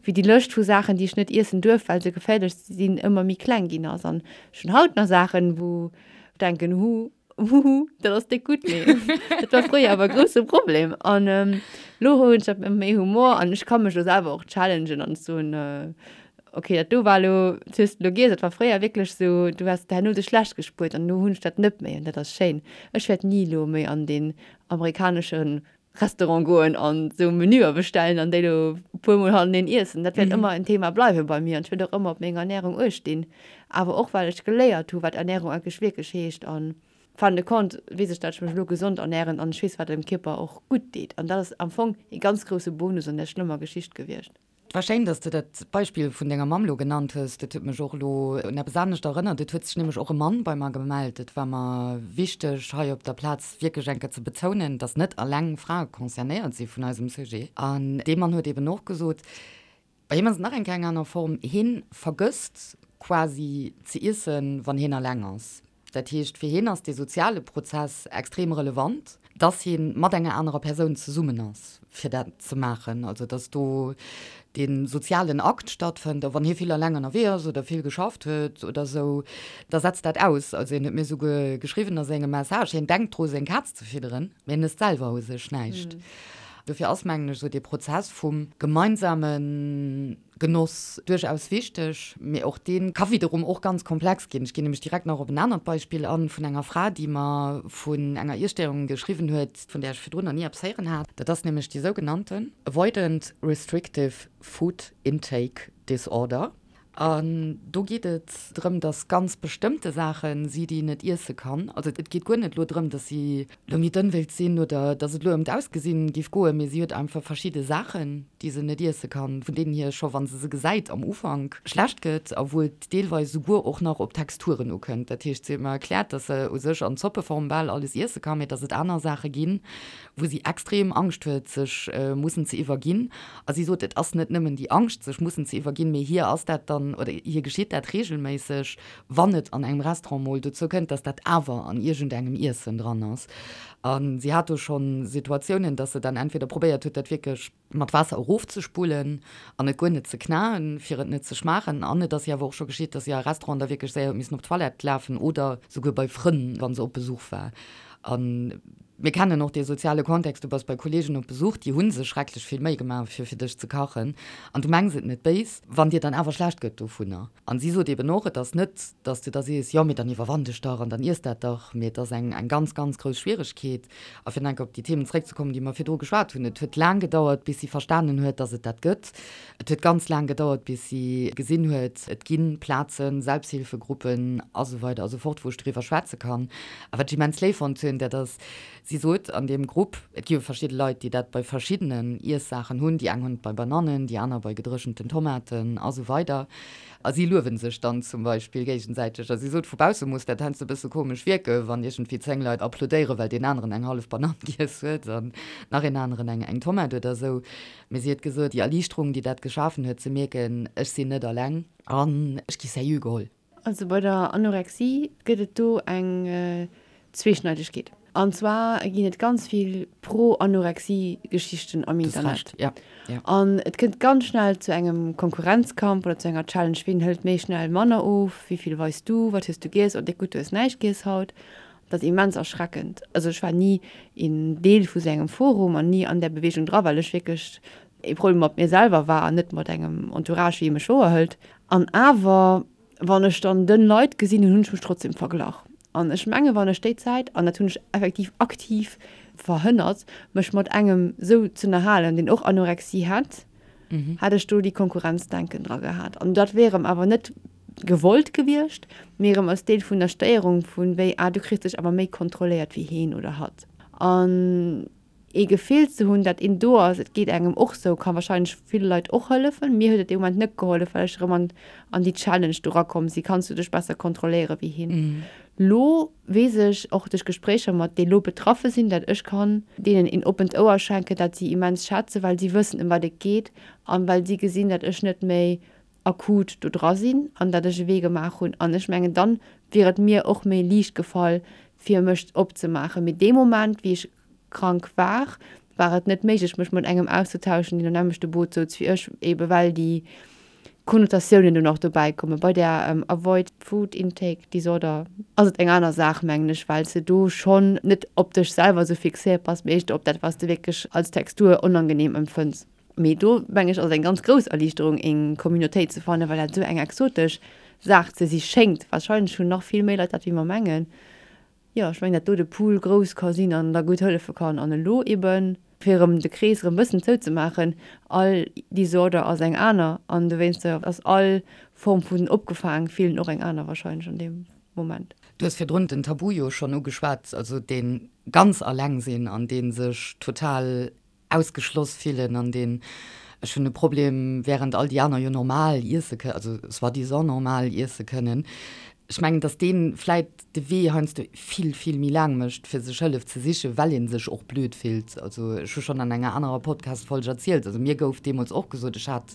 wéi déi Lëscht vu Saachen, déi ech net iessen duerf, well se geféierlech sinn, ëmmer méi kleng ginn ass. An ech hunn haut nach Saachen, wou ech denken, hu, Huhu, dat ass déck gutt, mee dat war fréier awer e grousse Problem. An elo hunn ech dat mat méi Humor an ech ka mech elo selwer och challengen an soen, okay, dat do war elo, dat hues de elo giess. Dat war fréier wierklech esou, du häss herno dech schlecht gespuert an elo hunn ech dat net méi an dat ass schéin. Ech wäert ni elo méi an deen amerikanesche Restaurant goen an sou Menüer bestellen an déi lo puer mol haneneen iessen. Dat wäert ëmmer en Thema bleiwe bei mir an ech wäert och ëmmer op meng Ernährung uecht dinn. Awer och well ech geléiert hu wat Ernährung eigentlech wierklech heescht an fin de compte weess ech dat ech mech elo gesond ernähren an ech weess wat dem Kierper och gutt deet an dat ass am Fong ee ganz grousse Bonus an där schlëmmer Geschicht gewiescht. Et war schéin, dass de dat Beispill vun denger Mamm lo genannt hues. Dat huet mech och elo un eppes anescht erënnert. Et huet sech nämlech och e Mann bei mer gemellt. Et war mer wichteg, hei op der Plaz wierklech eng Kéier ze betounen, dass net alleng Frae concernéiert si vun eisem Sujet. An dee Mann huet eben och gesot, bei him ass et nach eng Kéier eng aner Form, hien vergësst quasi ze iessen, wann hien alleng ass. Dat heescht, fir hien ass dee soziale Prozess extrem relevant, dass hie mat enger anerer Persoun zesummen ass, fir dat ze maachen. Also dass do dee sozialen Akt stattfënnt. A wann hie vill eleng ënnerwee ass oder vill geschafft huet oder esou, da setzt dat aus. Also hien huet mir souguer geschriwwen a sengem Message, hien denkt dru seng Kaz ze fidderen, mee en ësst selwer u sech näischt. Dofir ass, mengen ech, esou dee Prozess vum gemeinsamen Genoss duerchaus wichteg, mee och dee ka wiederum och ganz komplex ginn. Ech ginn nämlech direkt nach op en anert Beispill an, vun enger Fra, déi mer vun enger Iesstéierung geschriwwen huet, vun där ech virdrun nach ni eppes héieren hat. Dat ass nämlech déi sougenannten Avoidant Restrictive Food Intake Disorder. An do geet et drëm, dass ganz bestëmmte Saache si, déi een net iesse kann. Also et geet guer net elo drëm, dass si elo méi dënn wéilt sinn oder dass et elo ëm d'Ausgesinn géif goen, mee si huet einfach verschidde Saachen, déi se net iesse kann, vun deenen hir scho wa se se gesäit am Ufank schlecht gëtt a wou et deelweis esouguer och nach op d'Texturen ukënnt. Dat heescht, si huet mer erkläert, dass se u sech an Zoppeform bal alles iesse kann, mee dass et aner Saache ginn, wou si extrem Angscht huet, sech mussen ze iwwerginn. A si sot, et ass net nëmmen déi Angscht, sech mussen ze iwwerginn, mee hir ass dat dann, oder hir geschitt dat reegelméisseg, wann et an engem Restaurant mol dozou kënnt, dass dat awer an iergendengem Iessen dran ass. A si hat do scho Situatiounen, dass se dann entweder probéiert huet, dat wierklech mat Waasser erofzespullen an et guer net ze knaen, fir et net ze schmaachen. An et ass hir awer och scho geschitt, dass si a Restauranten da wierklech séier huet missen op d'Toilette lafen oder souguer bei Frënn, wa se op Besuch war. A mir kennen och dee soziale Kontext, du bass bei Kolleegen op Besuch, déi hu sech schrecklech vill Méi gemaach, fir fir dech ze kachen an du mengs et net béis, wann dir dann awer schlecht gëtt dovunner. An si sot eben och, et ass net, datt s de da sees, jo, mee dann iwwerwann dech dach an dann iess dat dach, mee et ass eng eng ganz, ganz grouss Schwieregkeet. A fir nach eng Kéier op déi Themen zeréckzekommen, déi mer virdru geschwat hunn, et huet laang gedauert, bis si verstanen huet, datt et dat gëtt. Et huet ganz laang gedauert, bis si gesinn huet, et gi Plazen, Selbsthilfegruppen a sou weider a sou fort, wou ech doriwwer schwätze kann. A wat ech immens léif fonnt hunn, dat ass, si sot an deem Grupp, et gi jo verschidde Leit, déi dat bei verschiddenen Iessaachen hunn, déi eng hunn et bei Banannen, déi aner bei gedréchenten Tomaten a sou weider. A si luewen sech dann zum Beispill géigesäiteg. A si sot, vu bausse muss dat heiansdo e bësse komesch wierken, wann iergendwéi 10 Leit applaudéieren, well deen aneren eng hallef Banann giess huet an nach een aneren eng eng Tomat oder esou. Mee si huet gesot, déi Erliichterung, déi dat geschafen huet, ze mierken, ech sinn net alleng an ech gi sérieux geholl. Also bei der Anorexie gëtt et do eng Zweeschneidegkeet. An zwar ginn et ganz vill Pro-Anorexie-Geschichten am Internet. An et kënnt ganz schnell zu engem Konkurrenzkampf oder zu enger Challenge, wien hëlt méi schnell manner of, wéi vill weis du, wat hues du giess, oh déck gutt, du hues näischt giess haut. Dat ass immens erschreckend. Also ech war ni een Deel vu sou engem Forum an ni an där Beweegung dra, well ech wierklech ee Problem mat mir selwer war an net mat engem Entourage, wéi e mech wouerhëlt. An awer, wann ech dann dënn Leit gesinn hunn, hunn ech mech trotzdem verglach. An ech menge wann ech déi Zäit, an dat hunn ech effektiv aktiv verhënnert, mech mat engem sou z'ënnerhalen, deen och Anorexie hätt, hätt ech do déi Konkurrenzdenken dra gehat. An dat wier erëm awer net gewollt gewiescht, mee erëm als Deel vun der Stéierung vun wéi, ah du kriss dech awer méi kontrolléiert wéi heen oder hatt. An ee Gefill ze hunn, dat een do ass, et geet engem och sou, ka wahrscheinlech ville Leit och hëllefen. Mir huet et dee Moment net gehollef, well ech erëm an an déi Challenge do rakomm si, kanns du dech besser kontrolléiere wéi hien. Lo weess ech och duerch Gespréicher mat déi lo betraffe sinn, dat ech kann deenen een oppent Ouer schenken, dat si immens schätzen, well si wëssen ëm wat et geet an well si gesinn, dat ech net méi akut do dra sinn an dat ech e Wee gemaach hunn. An ech mengen, dann wier et mir och méi liicht gefall, fir mech opzemaachen. Mee dee Moment, wéi ech krank war, war et net méiglech, mech mat engem auszetauschen, deen am nämmlechte Boot souz wéi ech, ebe well déi Konnotatiounen do nach dobäi kommen. Bei der Avoid Food Intake Disorder ass et eng aner Saach, mengen ech, well s de do schonn net op dech selwer esou fixéiert bass, mee éischter op dat, wat s de wierklech als Textur onangeneem empfënns. Mee do, mengen ech, ass et eng ganz grouss Erliichterung, eng Communautéit ze fannen, well dat esou eng exotesch Saach ze si schéngt. Warscheinlech hunn nach vill méi Leit dat, wéi mer mengen. Jo, ech mengen, dat do de Pool grouss ka sinn an da gutt hëllefe kann. An elo eben, fir erëm de Krees erëm e bëssen zouzemaachen, all Disorder ass eng aner an dowéinster ass all Form vun opgefaang fillen och eng aner warscheinlech an deem Moment. Du hues virdrun den Tabu jo schonn ugeschwat, also dee ganz alleng sinn an dee sech total ausgeschloss fillen an deen, ech hunn e Problem, während all déi aner jo normal iesse kënnen, also soi-disant normal iesse kënnen. Ech mengen, datt dee vläit de Wee heiansdo vill, vill méi laang mécht, fir sech Hëllef ze sichen, well ee sech och blöd fillt. Also ech hu schonn an enger anerer Podcast-Folg erzielt, also mir gouf deemools och gesot, ech hat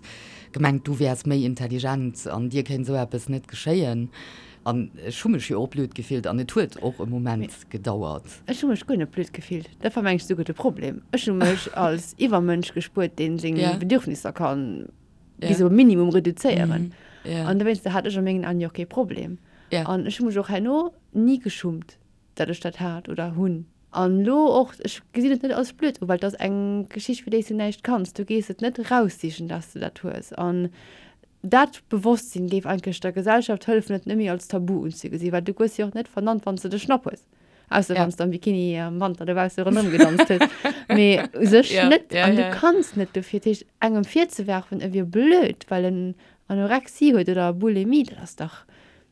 gemengt, du wäers méi intelligent an dir kéint esou eppes net geschéien. An ech hu mech jo och blöd gefillt an et huet och e Moment gedauert. Ech hu mech guer net blöd gefillt. Dat war mengen ech souguer de Problem. Ech hu mech als Iwwermënsch gespuert, dee seng Bedürfnisser ka bis op e Minimum reduzéieren. An dowéinster hat ech a mengen Aen jo och kee Problem. An ech hu mech och herno ni geschummt, datt ech dat hat oder hunn. An elo och, ech gesinn et net als blöd u, well et ass eng Geschicht, fir déi s du näischt kanns. Du gees et net eraussichen, datt s du dat hues. An Dat Bewosstsinn géif eigentlech der Gesellschaft hëllefen, et net méi als Tabu unzegesinn, well du goes jo och net vernannt, wann s de de Schnapp hues, ausser wann s de am Bikini am Wanter dobausse ronderëm gedanzt hues, mee u sech net. An du kanns net dofir. Dat heescht, engem virzewerfen, e wier blöd, well en Anorexie huet oder Bulimie, dat ass dach,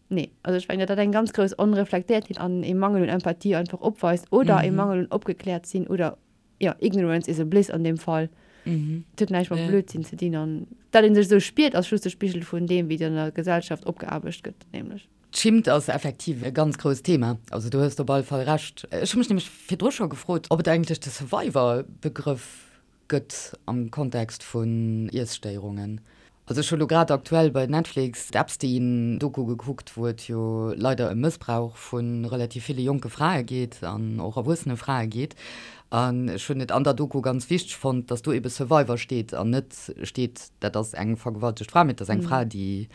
nee. Also ech mengen, datt dat eng ganz grouss Onreflektéiertheet an ee Mangel un Empathie einfach opweist oder ee Mangel un opgekläert sinn oder jo, ignorance is a bliss an deem Fall. Mhm. Et huet näischt mat ja. Blödsinn ze dinn an dat een sech esou spiert, ass just de Spigel vun deem, wéi an der Gesellschaft opgeaarbecht gëtt, nämlech. D'Schimmt ass effektiv e ganz grousst Thema. Also do hues de op alle Fall Recht. Ech hu mech nämlech virdru scho gefrot, ob et eigentlech de Survivor-Begrëff gëtt am Kontext vun Iesstéierungen. Also ech hu lo grad aktuell bei Netflix d'Epstein-Doku gekuckt, wou et jo leider ëm Mëssbrauch vu relativ ville jonke Frae geet an och erwuessene Frae geet. An ech hunn et an der Doku ganz wichteg fonnt, datt do ebe Survivor steet an net steet, dat ass eng vergewaltegt Fra, mee et ass eng Fra, déi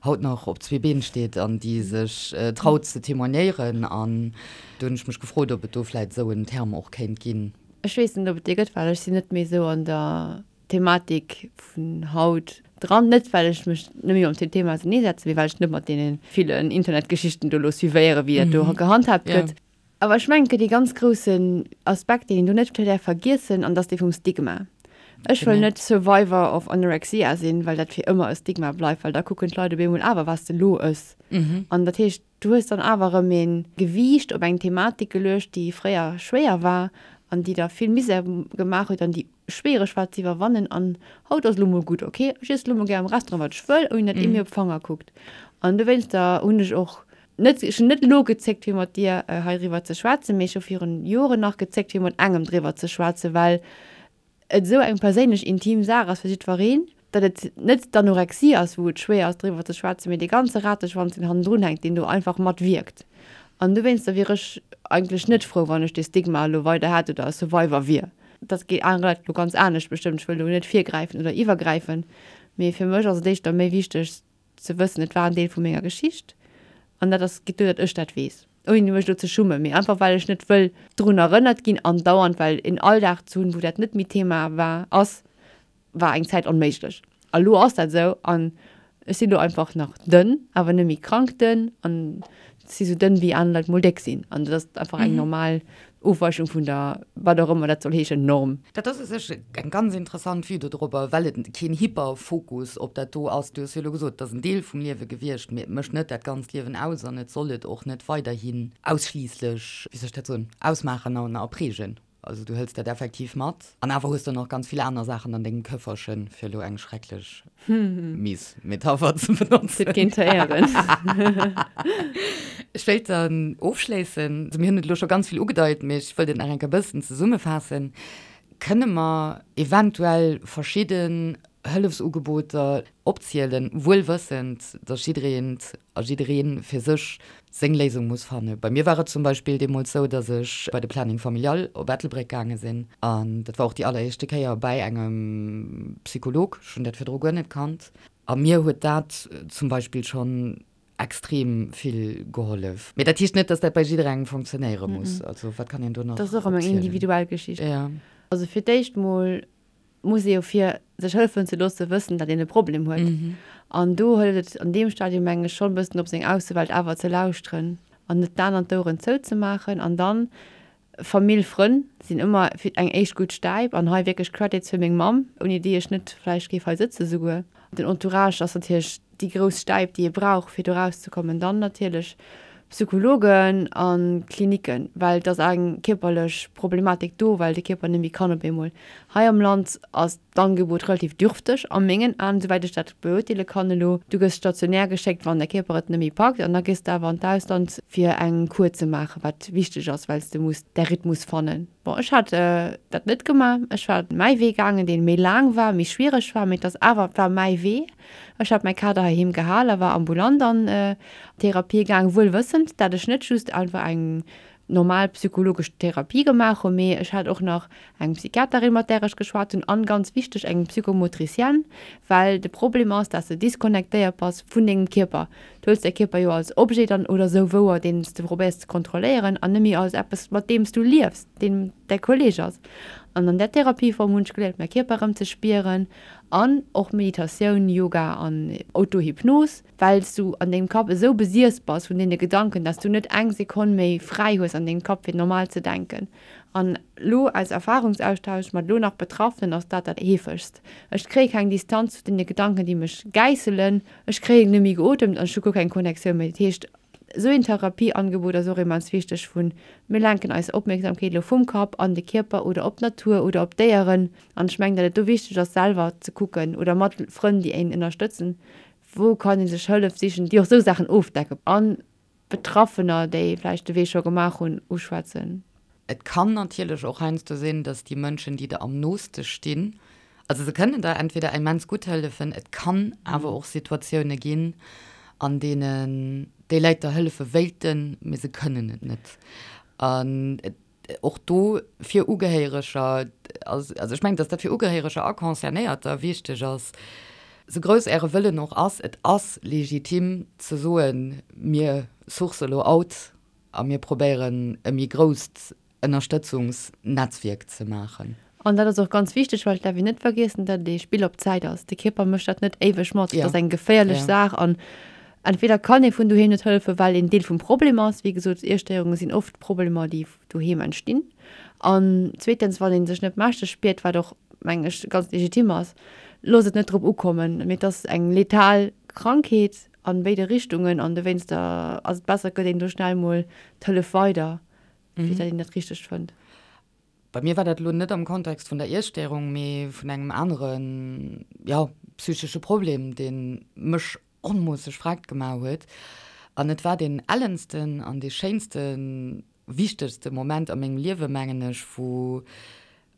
haut nach op zwee Been steet an déi sech traut ze témoignéieren. An do hunn ech mech gefrot, ob et do vläit esou en Terme och kéint ginn. Ech weess net, ob et dee gëtt, well ech sinn net méi esou an der Thematik vun haut dran. Net well ech mech net méi mam Thema auserneesetzen, mee well ech net mat deene villen Internetgeschichten do elo suivéieren, wéi dat do gehandhaabt gëtt. Awer ech mengen, et gëtt ee ganz groussen Aspekt, deen een do net däerf vergiessen, an dat ass dee vum Stigma. Ech wëll net Survivor of Anorexia sinn, well dat fir ëmmer e Stigma bleift, well da kucken d'Leit op eemol awer, wat s de elo ëss. An dat heescht, Du hues dann awer erëm ee Gewiicht op eng Thematik geluecht, déi fréier schwéier war an déi der vill Misär gemaach huet an déi schwiereg war ze iwwerwannen. An haut ass elo mol gutt, ok, ech iesse elo mol gär am Restaurant wat ech wëll, ouni datt ee mir op d'Fanger kuckt. An dowéinster hunn ech och net, ech hunn net elo gezéckt fir mat dir heiriwwer ze schwätzen, mee ech hu virun Joren nach gezéckt fir mat engem driwwer ze schwätzen, well et esou eng perséinlech intim Saach ass fir jiddwereen, datt et net d'Anorexie ass, wou et schwéier ass driwwer ze schwätzen, mee dee ganze Rateschwanz, deen hannendrun hänkt, deen do einfach mat wierkt. An dowéinster wier ech eigentlech net frou, wann ech dee Stigma elo weider hätt oder e Survivor wier. Dat geet anere Leit elo ganz anescht bestëmmt, ech wëll do net virgräifen oder iwwergräifen, mee fir mech ass et éischter méi wichteg, ze wëssen, et war en Deel vu menger Geschicht an dat ass, geet duer, datt ech dat weess, ouni mech elo ze schummen, mee einfach well ech net wëll drun erënnert ginn andauernd, well en Alldag ze hunn, wou dat net méi Thema war, ass, war eng Zäit onméiglech. A lo ass dat esou an ech sinn elo einfach nach dënn, awer net méi krank dënn an si sou dënn wéi aner Leit mol déck sinn an dat ass einfach eng normal Ofweichung vun der, wat och ëmmer dat soll heeschen, Norm. Dat ass u sech eng ganz interessant Vue dodrobber, well et keen Hyperfokus op dat do ass. Du hues jo elo gesot, et ass en Deel vum Liewe gewiescht, mee et mécht net dat ganzt Liewen aus an et soll et och net weiderhin ausschliisslech, wéi soll ech dat soen, ausmaachen an a prägen. Also du hëls dat effektiv mat. An awer hues de nach ganz vill aner Saachen an dengem Këfferchen, fir elo eng schrecklech mies Metapher ze benotzen. Et géint héieren. Ech wéilt dann ofschléissen, also mir hunn et elo scho ganz vill ugedeit, mee ech wëllt et nach eng Kéier e bëssen zesummefaassen, Kënne mer eventuell verschidden Hëllefsugeboter opzielen, wuel wëssend, dass jiddereent a jidderee fir sech seng Léisung muss fannen. Bei mir war et zum Beispill deemools sou, dass ech bei de Planning Familial op Ettelbréck gaange sinn an dat war och déi alleréischte Kéier bäi engem Psycholog, ech hunn dat virdru guer net kannt a mir huet dat zum Beispill schonn extrem vill gehollef. Mee dat heescht net, dass dat bei jidderengem funktionéiere muss. Also wat kann een do nach Dat ass och ëmmer eng individuell Geschicht. Also fir d'éischt mol muss ee jo fir sech hëllefen ze loosse wëssen, datt een e Problem huet. An do hëlt et an deem Stadium meng ech schonn e bëssen op seng Aussewelt awer ze lauschteren an net d'Aen an d'Oueren zouzemaachen. An dann Famill, Frënn sinn ëmmer fir eng éischt gutt Stäip an hei wierklech Credits fir meng Mamm, ouni déi ech net vläicht géif hei sëtze souguer. Den Entourage ass natierlech déi grouss Stäip, déi ee brauch, fir do rauszekommen. Dann natierlech Psychologen a Klinicken, well et ass eng kierperlech Problematik do, well de Kierper net méi kann op eemol. Hei am Land ass d'Angebot relativ dürfteg a mengen Aen, souwäit ech dat beurteele kann elo. Du gëss stationär geschéckt, wann däi Kierper et net méi packt, an da gees de awer an d'Ausland, fir eng Kur ze maachen, wat wichteg ass, well s de muss däi Rhythmus fannen. Bon, ech hat dat net gemaach. Ech war mäi Wee gaangen, dee méi laang war, méi schwiereg war, mee et ass awer, et war mäi Wee. Ech hat mäi Kader heiheem gehal a war ambulant an Therapie gaang, wuel wëssend, dat ech net just einfach eng normal psychologesch Therapie gemaach hunn, mee ech hat och nach eng Psychiaterin, mat där ech geschwat hunn, an, ganz wichteg, eng Psychomotricienne, well de Problem ass, dat s de disconnectéiert bass vun dengem Kierper. Du huels däi Kierper jo als Objet dann oder sou wouer, deen s de probéiers ze kontrolléieren, an net méi als eppes, mat deem s du liefs, deen däi Kolleeg ass. An an där Therapieform hunn ech geléiert, mäi Kierper erëm ze spieren, An och Meditatioun, Yoga an Autohypnos, well s du an dengem Kapp esou besiess bass vun deene Gedanken, dass du net eng Sekonn méi fräi hues an dengem Kapp fir normal ze denken. An lo aus Erfahrungsaustausch mat lo nach Betraffenen ass dat dat heefegst. Ech kréie keng Distanz zu deene Gedanken déi mech gäisselen, ech kréien net méi geotemt an ech hu guer keng Connectioun méi. Dat heescht esou een Therapieangebot ass och immens wichteg vun mir lenken eis Opmierksamkeet elo vum Kapp an de Kierper oder op d'Natur oder op d'Déieren. An ech mengen, datt et do wichteg ass, selwer ze kucken oder mat Frënn, déi een ënnerstëtzen, wou kann ee sech Hëllef sichen, déi och esou Saachen ofdecken an Betraffener, déi vläicht de Wee scho gemaach hunn, uschwätzen. Et kann natierlech och heiansdo sinn, datt déi Mënschen, déi der am nooste stinn, also se kënnen der entweder immens gutt hëllefen, et kann awer och Situatioune ginn, an deenen déi Leit der hëllefe wéilten, mee se kënnen et net. An et Och do fir Ugehéiereger, also ech mengen, datt dat fir Ugehéiereger a Concernéierter wichteg ass, sou grouss Äre Wëllen och ass, et ass legitim ze soen, mir source elo out a mir probéieren e méi grousst Ënnerstëtzungsnetzwierk ze maachen. An dat ass och ganz wichteg, well et däerf een net vergiessen, datt et ee Spill op Zäit ass. De Kierper mécht dat net éiweg mat. Dat ass eng geféierlech Saach an entweder kann ee vun doheem net hëllefen, well een Deel vum Problem ass. Wéi gesot, Iesstéierunge sinn oft Problemer, déi doheem entstinn. An zweetens, wann ee sech net mächteg spiert, wat och, mengen ech, ganz legitim ass, loosst et net drop ukommen. Mee et ass eng letal Krankheet a béide Richtungen an dowéinster ass et besser, et gëtt een do schnell mol d'Hëllef weider, fir datt een dat Richtegt fënnt. Bei mir war dat elo net am Kontext vun der Iesstéierung, mee vun engem aneren, jo, psychesche Problem, dee mech onmoosseg vreckt gemaach huet. An et war deen ellensten an dee schéinsten, wichtegste Moment a mengem Liewe, mengen ech, wou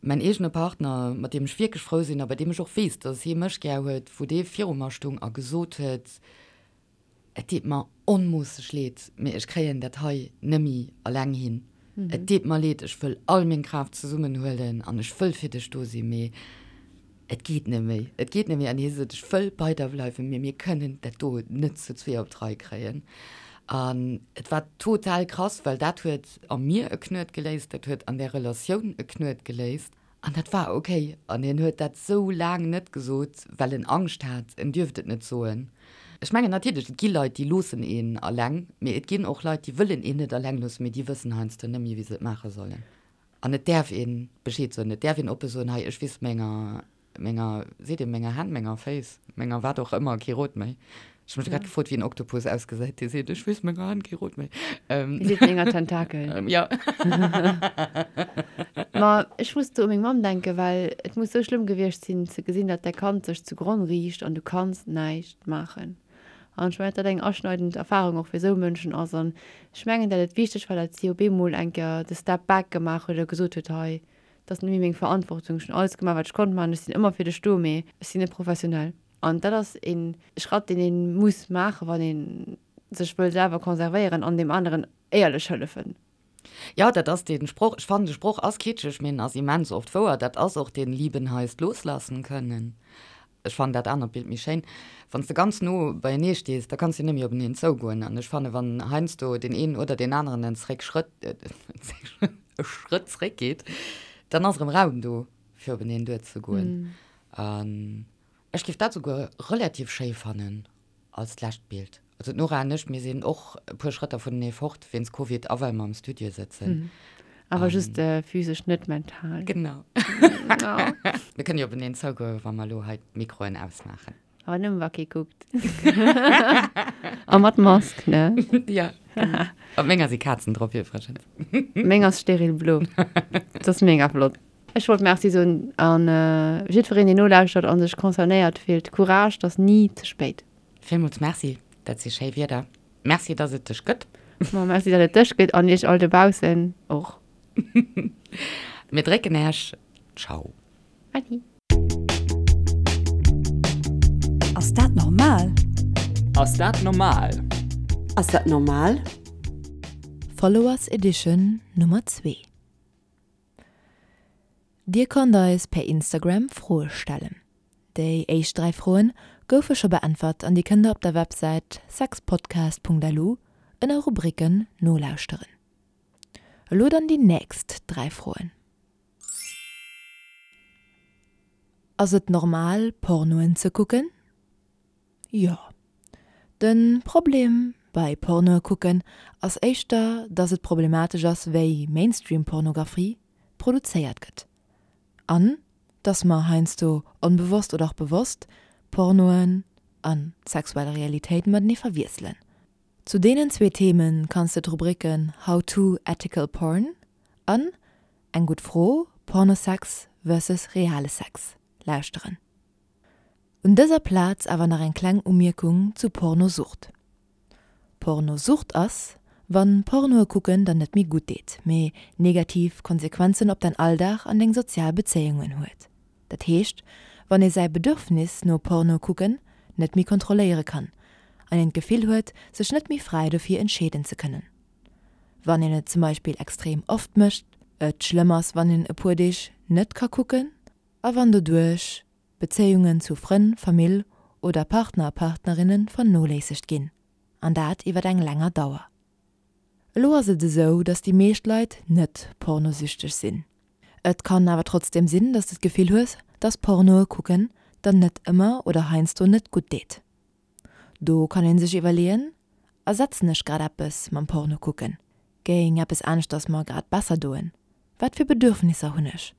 mäin eegene Partner, mat deem ech wierklech frou sinn a bei deem ech och weess, dass hie mech gär huet, wou dee viru mer stung a gesot huet, Et deet mer onmoosseg leed, mee ech kréien dat hei nëmmi alleng hin. Et deet mer leed, ech wëll all meng Kraaft zesummenhuelen an ech wëll fir dech do sinn, mee et geet net méi. Et geet net méi. An hie sot, Ech wëll bei der bleiwen, mee mir kënnen dat do net zu zwee op d'Rei kréien. An et war total krass, well dat huet a mir e Knuet geléist, dat huet an där Relatioun e Knuet geléist. An dat war ok. An hien huet dat sou laang net gesot, well en Angscht hat, en dierft et net soen. Ech mengen natierlech, et gi Leit, déi loossen een alleng, mee et ginn och Leit, déi wëllen een net alleng loossen, mee déi wëssen heiansdo net méi, wéi se et maache sollen. An et däerf ee Bescheed soen, et däerf een oppe soen, hei, ech weess menger, menger, seet ee menger Hänn, menger Féiss, menger wat och ëmmer kee Rot méi. Ech hu mech grad gefrot, wéi en Oktopus ausgesäit, dee seet, ech weess menger Hand kee Rot méi. Dee seet menger Tentakel. Jo. Ma ech muss do u meng Mamm denken, well et muss sou schlëmm gewiescht sinn, ze gesinn, datt däi Kand sech zu Gronn riicht an du kanns näischt maachen. An ech mengen, datt dat eng aschneidend Erfarung och fir esou Mënschen ass. An ech mengen, datt et wichteg war, datt si op eemol eng Kéier de Step back gemaach huet a gesot huet, hei, dat ass net méi meng Verantwortung, ech hunn alles gemaach, wat ech konnt maachen, ech sinn ëmmer fir dech do, mee ech sinn net professionell. An dat ass ee Schratt, deen ee muss maachen, wann ee sech wëll selwer konservéieren an deem aneren éierlech hëllefen. Jo, dat ass dee Sproch. Ech fannen, de Sproch ass kitscheg, mee en ass immens oft wouer. Dat ass och deen Lieben heißt loslassen können. Ech fannen dat anert Bild méi schéin. Wann s de ganz no beienee stees, da kanns de net méi openeen zougoen. An ech fannen, wann heiansdo deen een oder deen aneren en zréck Schrëtt, e Schrëtt zréckgeet, dann ass erëm Raum do, fir openeen duerzegoen. An Ech géif dat souguer relativ schéi fannen als d'lescht Bild. Also d'Nora an ech, mir sinn och e puer Schrëtter vunenee fort wéinst Covid a well mer am Studio sëtzen. Awer just physesch, net mental. Genau. Mir kënne jo openeen zougoen, wa mer elo hei d'Mikroen ausmaachen. Awer nëmme wa kee kuckt. A mat Mask, ne? Jo, genau. Op menger si Kazen drop iwwregens. Meng ass steril blo. Dat ass mega flott. Ech wollt Merci soen an jiddwereen deen nolauschtert an sech concernéiert fillt, Courage, 't ass ni ze spéit. Villmools Merci, dat si schéi Wierder. Merci, dass et dech gëtt. Ma merci, dat et dech gëtt an iech all dobaussen och. Mir drécken Äech. Ciao. Adi. Ass dat normal? Ass dat normal? Ass dat normal? Followers Edition Nummer 2. Dir konnt eis per Instagram Froe stellen. Déi éischt 3 Froen goufe scho beäntwert an déi kënnt der op der Websäit sexpodcast.lu ënner Rubriken nolauschteren. Elo dann déi nächst 3 Froen. Ass et normal Pornoen ze kucken? Jo. Den Problem bei Pornoe kucken ass éischter dass et problematesch ass wéi Mainstream Pornographie produzéiert gëtt an dass mer heiansdo onbewosst oder och bewosst Pornoen an sexuell Realitéit matenee verwiesselen. Zu deenen zwee Themen kanns de d'Rubriken How to ethical porn an Eng gutt Fro, Pornosex versus reale Sex lauschteren. Un dëser Plaz awer nach eng kleng Umierkung zu Pornosucht. Pornosucht ass, wann Pornoe kucken der net méi gutt deet, mee negativ Konsequenzen op däin Alldag an deng sozial Bezéiungen huet. Dat heescht, wann ee säi Bedürfnis no Porno kucken net méi kontrolléiere kann an een d'Gefill huet, sech net méi fräi dofir entscheeden ze kënnen. Wann een et zum Beispill extrem oft mécht, et schlëmm ass wann een e puer Deeg net ka kucken a wann doduerch Bezéiungen zu Frënn, Famill oder Partner a Partnerinne vernoléissegt ginn, an dat iwwer eng länger Dauer. Elo ass et esou, dass déi meescht Leit net pornosüchteg sinn. Et kann awer trotzdeem sinn, dass de d'Gefill hues, dass Pornoe kucken der net ëmmer oder heiansdo net gutt deet. Do kann een sech iwwerleeën, Ersetzen ech grad eppes mam Porno kucken? Géing eppes aneschters mer grad besser doen? Wat fir Bedürfnisser hunn ech?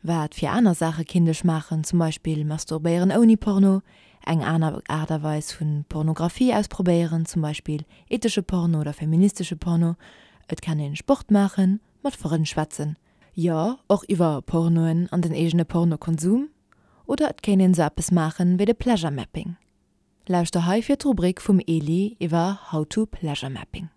Wat fir aner Saache kinnt ech maachen, zum Beispill masturbéieren ouni Porno, eng aner Aart a Weis vu Pornografie ausprobéieren, zum Beispill ethesche Porno oder feministesche Porno, et kann een Sport maachen, mat Frënn schwätzen, jo och iwwer Pornoen an den eegene Pornokonsum, oder et kéint een sou eppes maachen wéi de Pleasure Mapping. Lauschter hei fir d'Rubrik vum Eli iwwer How to Pleasure Mapping.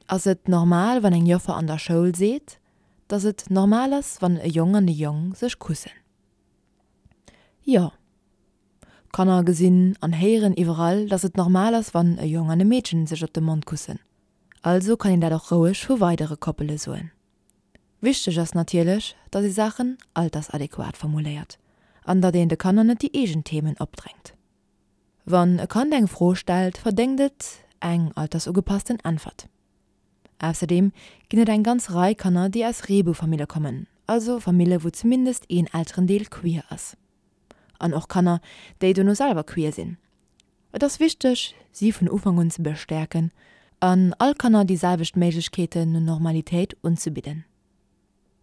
Ass et normal wann eng Joffer an der Schoul seet, dass et normal ass wann e Jong an e Jong sech kussen? Jo. Kanner gesinn an héieren iwwerall, dass et normal ass wann e Jong an e Meedchen sech op de Mond kussen. Also kann een dat och roueg vu weidere Koppele soen. Wichteg ass natierlech, dass ee Saachen altersadequat formuléiert an datt een de Kanner net déi eegen Themen opdrängt. Wann e Kand eng Fro stellt, verdéngt et eng altersugepassten Äntwert. Ausserdeem ginn et eng ganz Rei Kanner, déi aus Reeboufamille kommen, also Famille wou zumindest een Elterendeel queer ass. An och Kanner, déi dono selwer queer sinn. Et ass wichteg, si vun Ufank un ze bestäerken an all Kanner déi selwecht Méiglechkeeten no Normalitéit unzebidden.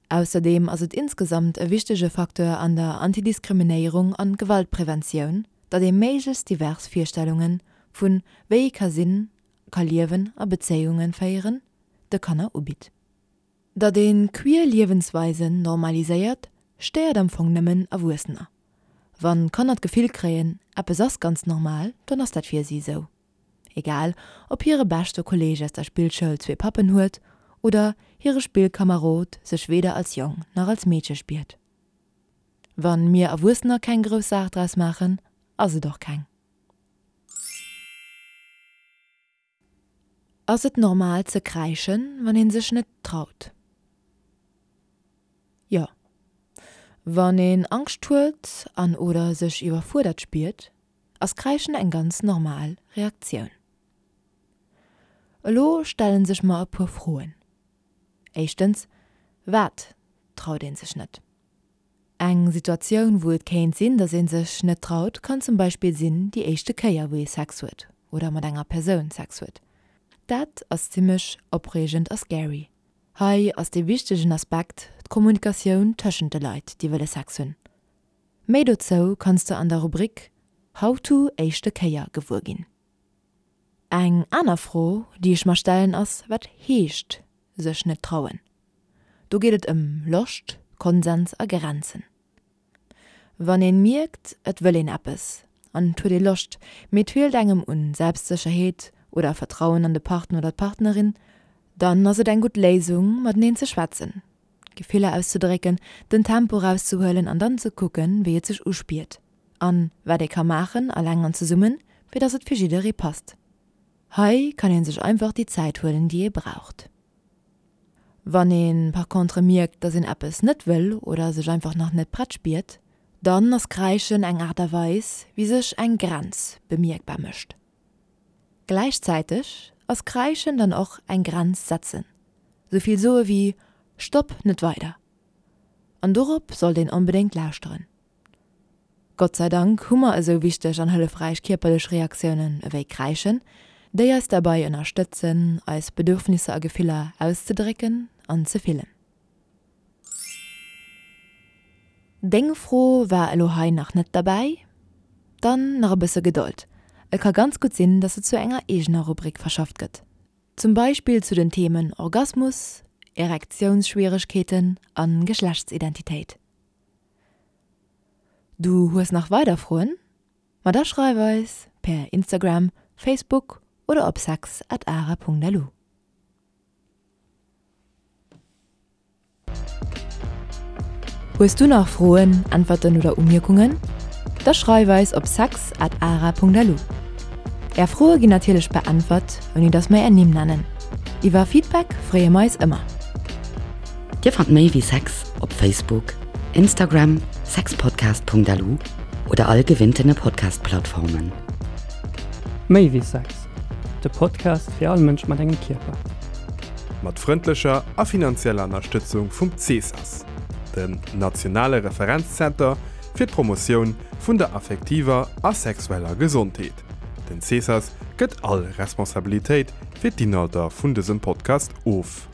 Ausserdeem ass et insgesamt e wichtege Facteur an der Antidiskriminéierung an Gewaltpreventioun, datt ee méiglechst divers Virstellunge vun wéi ee ka sinn, ka liewen a Bezéiunge féieren, de Kanner ubitt. Datt ee queer Liewensweisen normaliséiert, stéiert am Fong nëmmen Erwuessener. Wann Kanner d'Gefill kréien, eppes ass ganz normal, dann ass dat fir si esou. Egal, ob hire beschte Kolleeg aus der Spillschoul zwee Pappen huet oder hire Spillkamerod sech weder als Jong nach als Meedche spiert. Wann mir Erwuessener keng grouss Saach draus maachen, ass et och keng. Ass et normal ze kräischen, wann een sech net traut? Jo. Wann een Angscht huet an oder sech iwwerfuerdert spiert, ass Kräischen eng ganz normal Reaktioun. Elo stellen sech mer e puer Froen. Éischtens, Wat traut een sech net? Eng Situatioun wou et kéint sinn, dass ee sech net traut, kann zum Beispill sinn déi éischte Kéier wou ee Sex huet oder mat enger Persoun Sex huet. Dat ass zimmlech opreegend a scary. Hei ass dee wichtegen Aspekt d'Kommunikatioun tëschent de Leit déi wëlle Sex hunn. Méi dozou kanns de an der Rubrik How to éischte Kéier gewuer ginn. Eng aner Fro déi ech mer stellen ass, wat heescht sech net trauen? Do geet et ëm Loscht, Konsens a Grenzen. Wann een mierkt et wëll een eppes an et huet ee Loscht, mee et feelt engem un Selbstsécherheet oder Vertrauen an de Partner oder d'Partnerin, dann ass et eng gutt Léisung mateneen ze schwätzen, Gefiller auszedrécken, den Tempo rauszehuelen an dann ze kucken wéi et sech uspiert an wat ee ka maachen, alleng an zesummen, fir dass et fir jidderee passt. Hei kann ee sech einfach déi Zäit huelen déi ee braucht. Wann ee par contre mierkt, dass een eppes net wëll oder sech einfach nach net prett spiert, dann ass Kräischen eng Aart a Weis, wéi sech eng Grenz bemierkbar mécht. Gläichzäiteg ass Kräischen dann och eng Grenz setzen, sou vill soe wéi Stopp, net weider. An dorop sollt een onbedéngt lauschteren. Gott sei Dank hu mer esou wichteg an hëllefräich kierperlech Reaktiounen ewéi Kräischen, déi eis derbei ënnerstëtzen, eis Bedürfnisser a Gefiller auszedrécken an ze fillen. Deng Fro war elo hei nach net derbäi? Dann nach e bësse Gedold, et ka ganz gutt sinn, dass se zu enger eegener Rubrik verschafft gëtt. Zum Beispill zu den Themen Orgasmus, Erektiounsschwieregkeeten a Geschlechtsidentitéit. Du hues nach weider Froen? Ma da schreif eis per Instagram, Facebook oder op sex at ara.lu. Hues du nach Froen, Äntwerten oder Umierkungen? Da schreif eis op sex at ara.lu. Är Froe ginn natierlech beäntwert, ouni dass mer är Nimm nennen. Iwwer Feedback freeë mer eis ëmmer. Dir fannt méi wéi Sex op Facebook, Instagram, sexpodcast.lu oder all gewinntene Podcast-Plattformen. Méi wéi Sex, de Podcast fir all Mënsch mat engem Kierper. Mat frëndlecher a finanzieller Ënnerstëtzung vum CESAS, dem nationale Referenzzenter fir d'Promotioun vun der affektiver a sexueller Gesondheet. Den CESAS gëtt all Responsabilitéit fir d'Inhalter vun dësem Podcast of.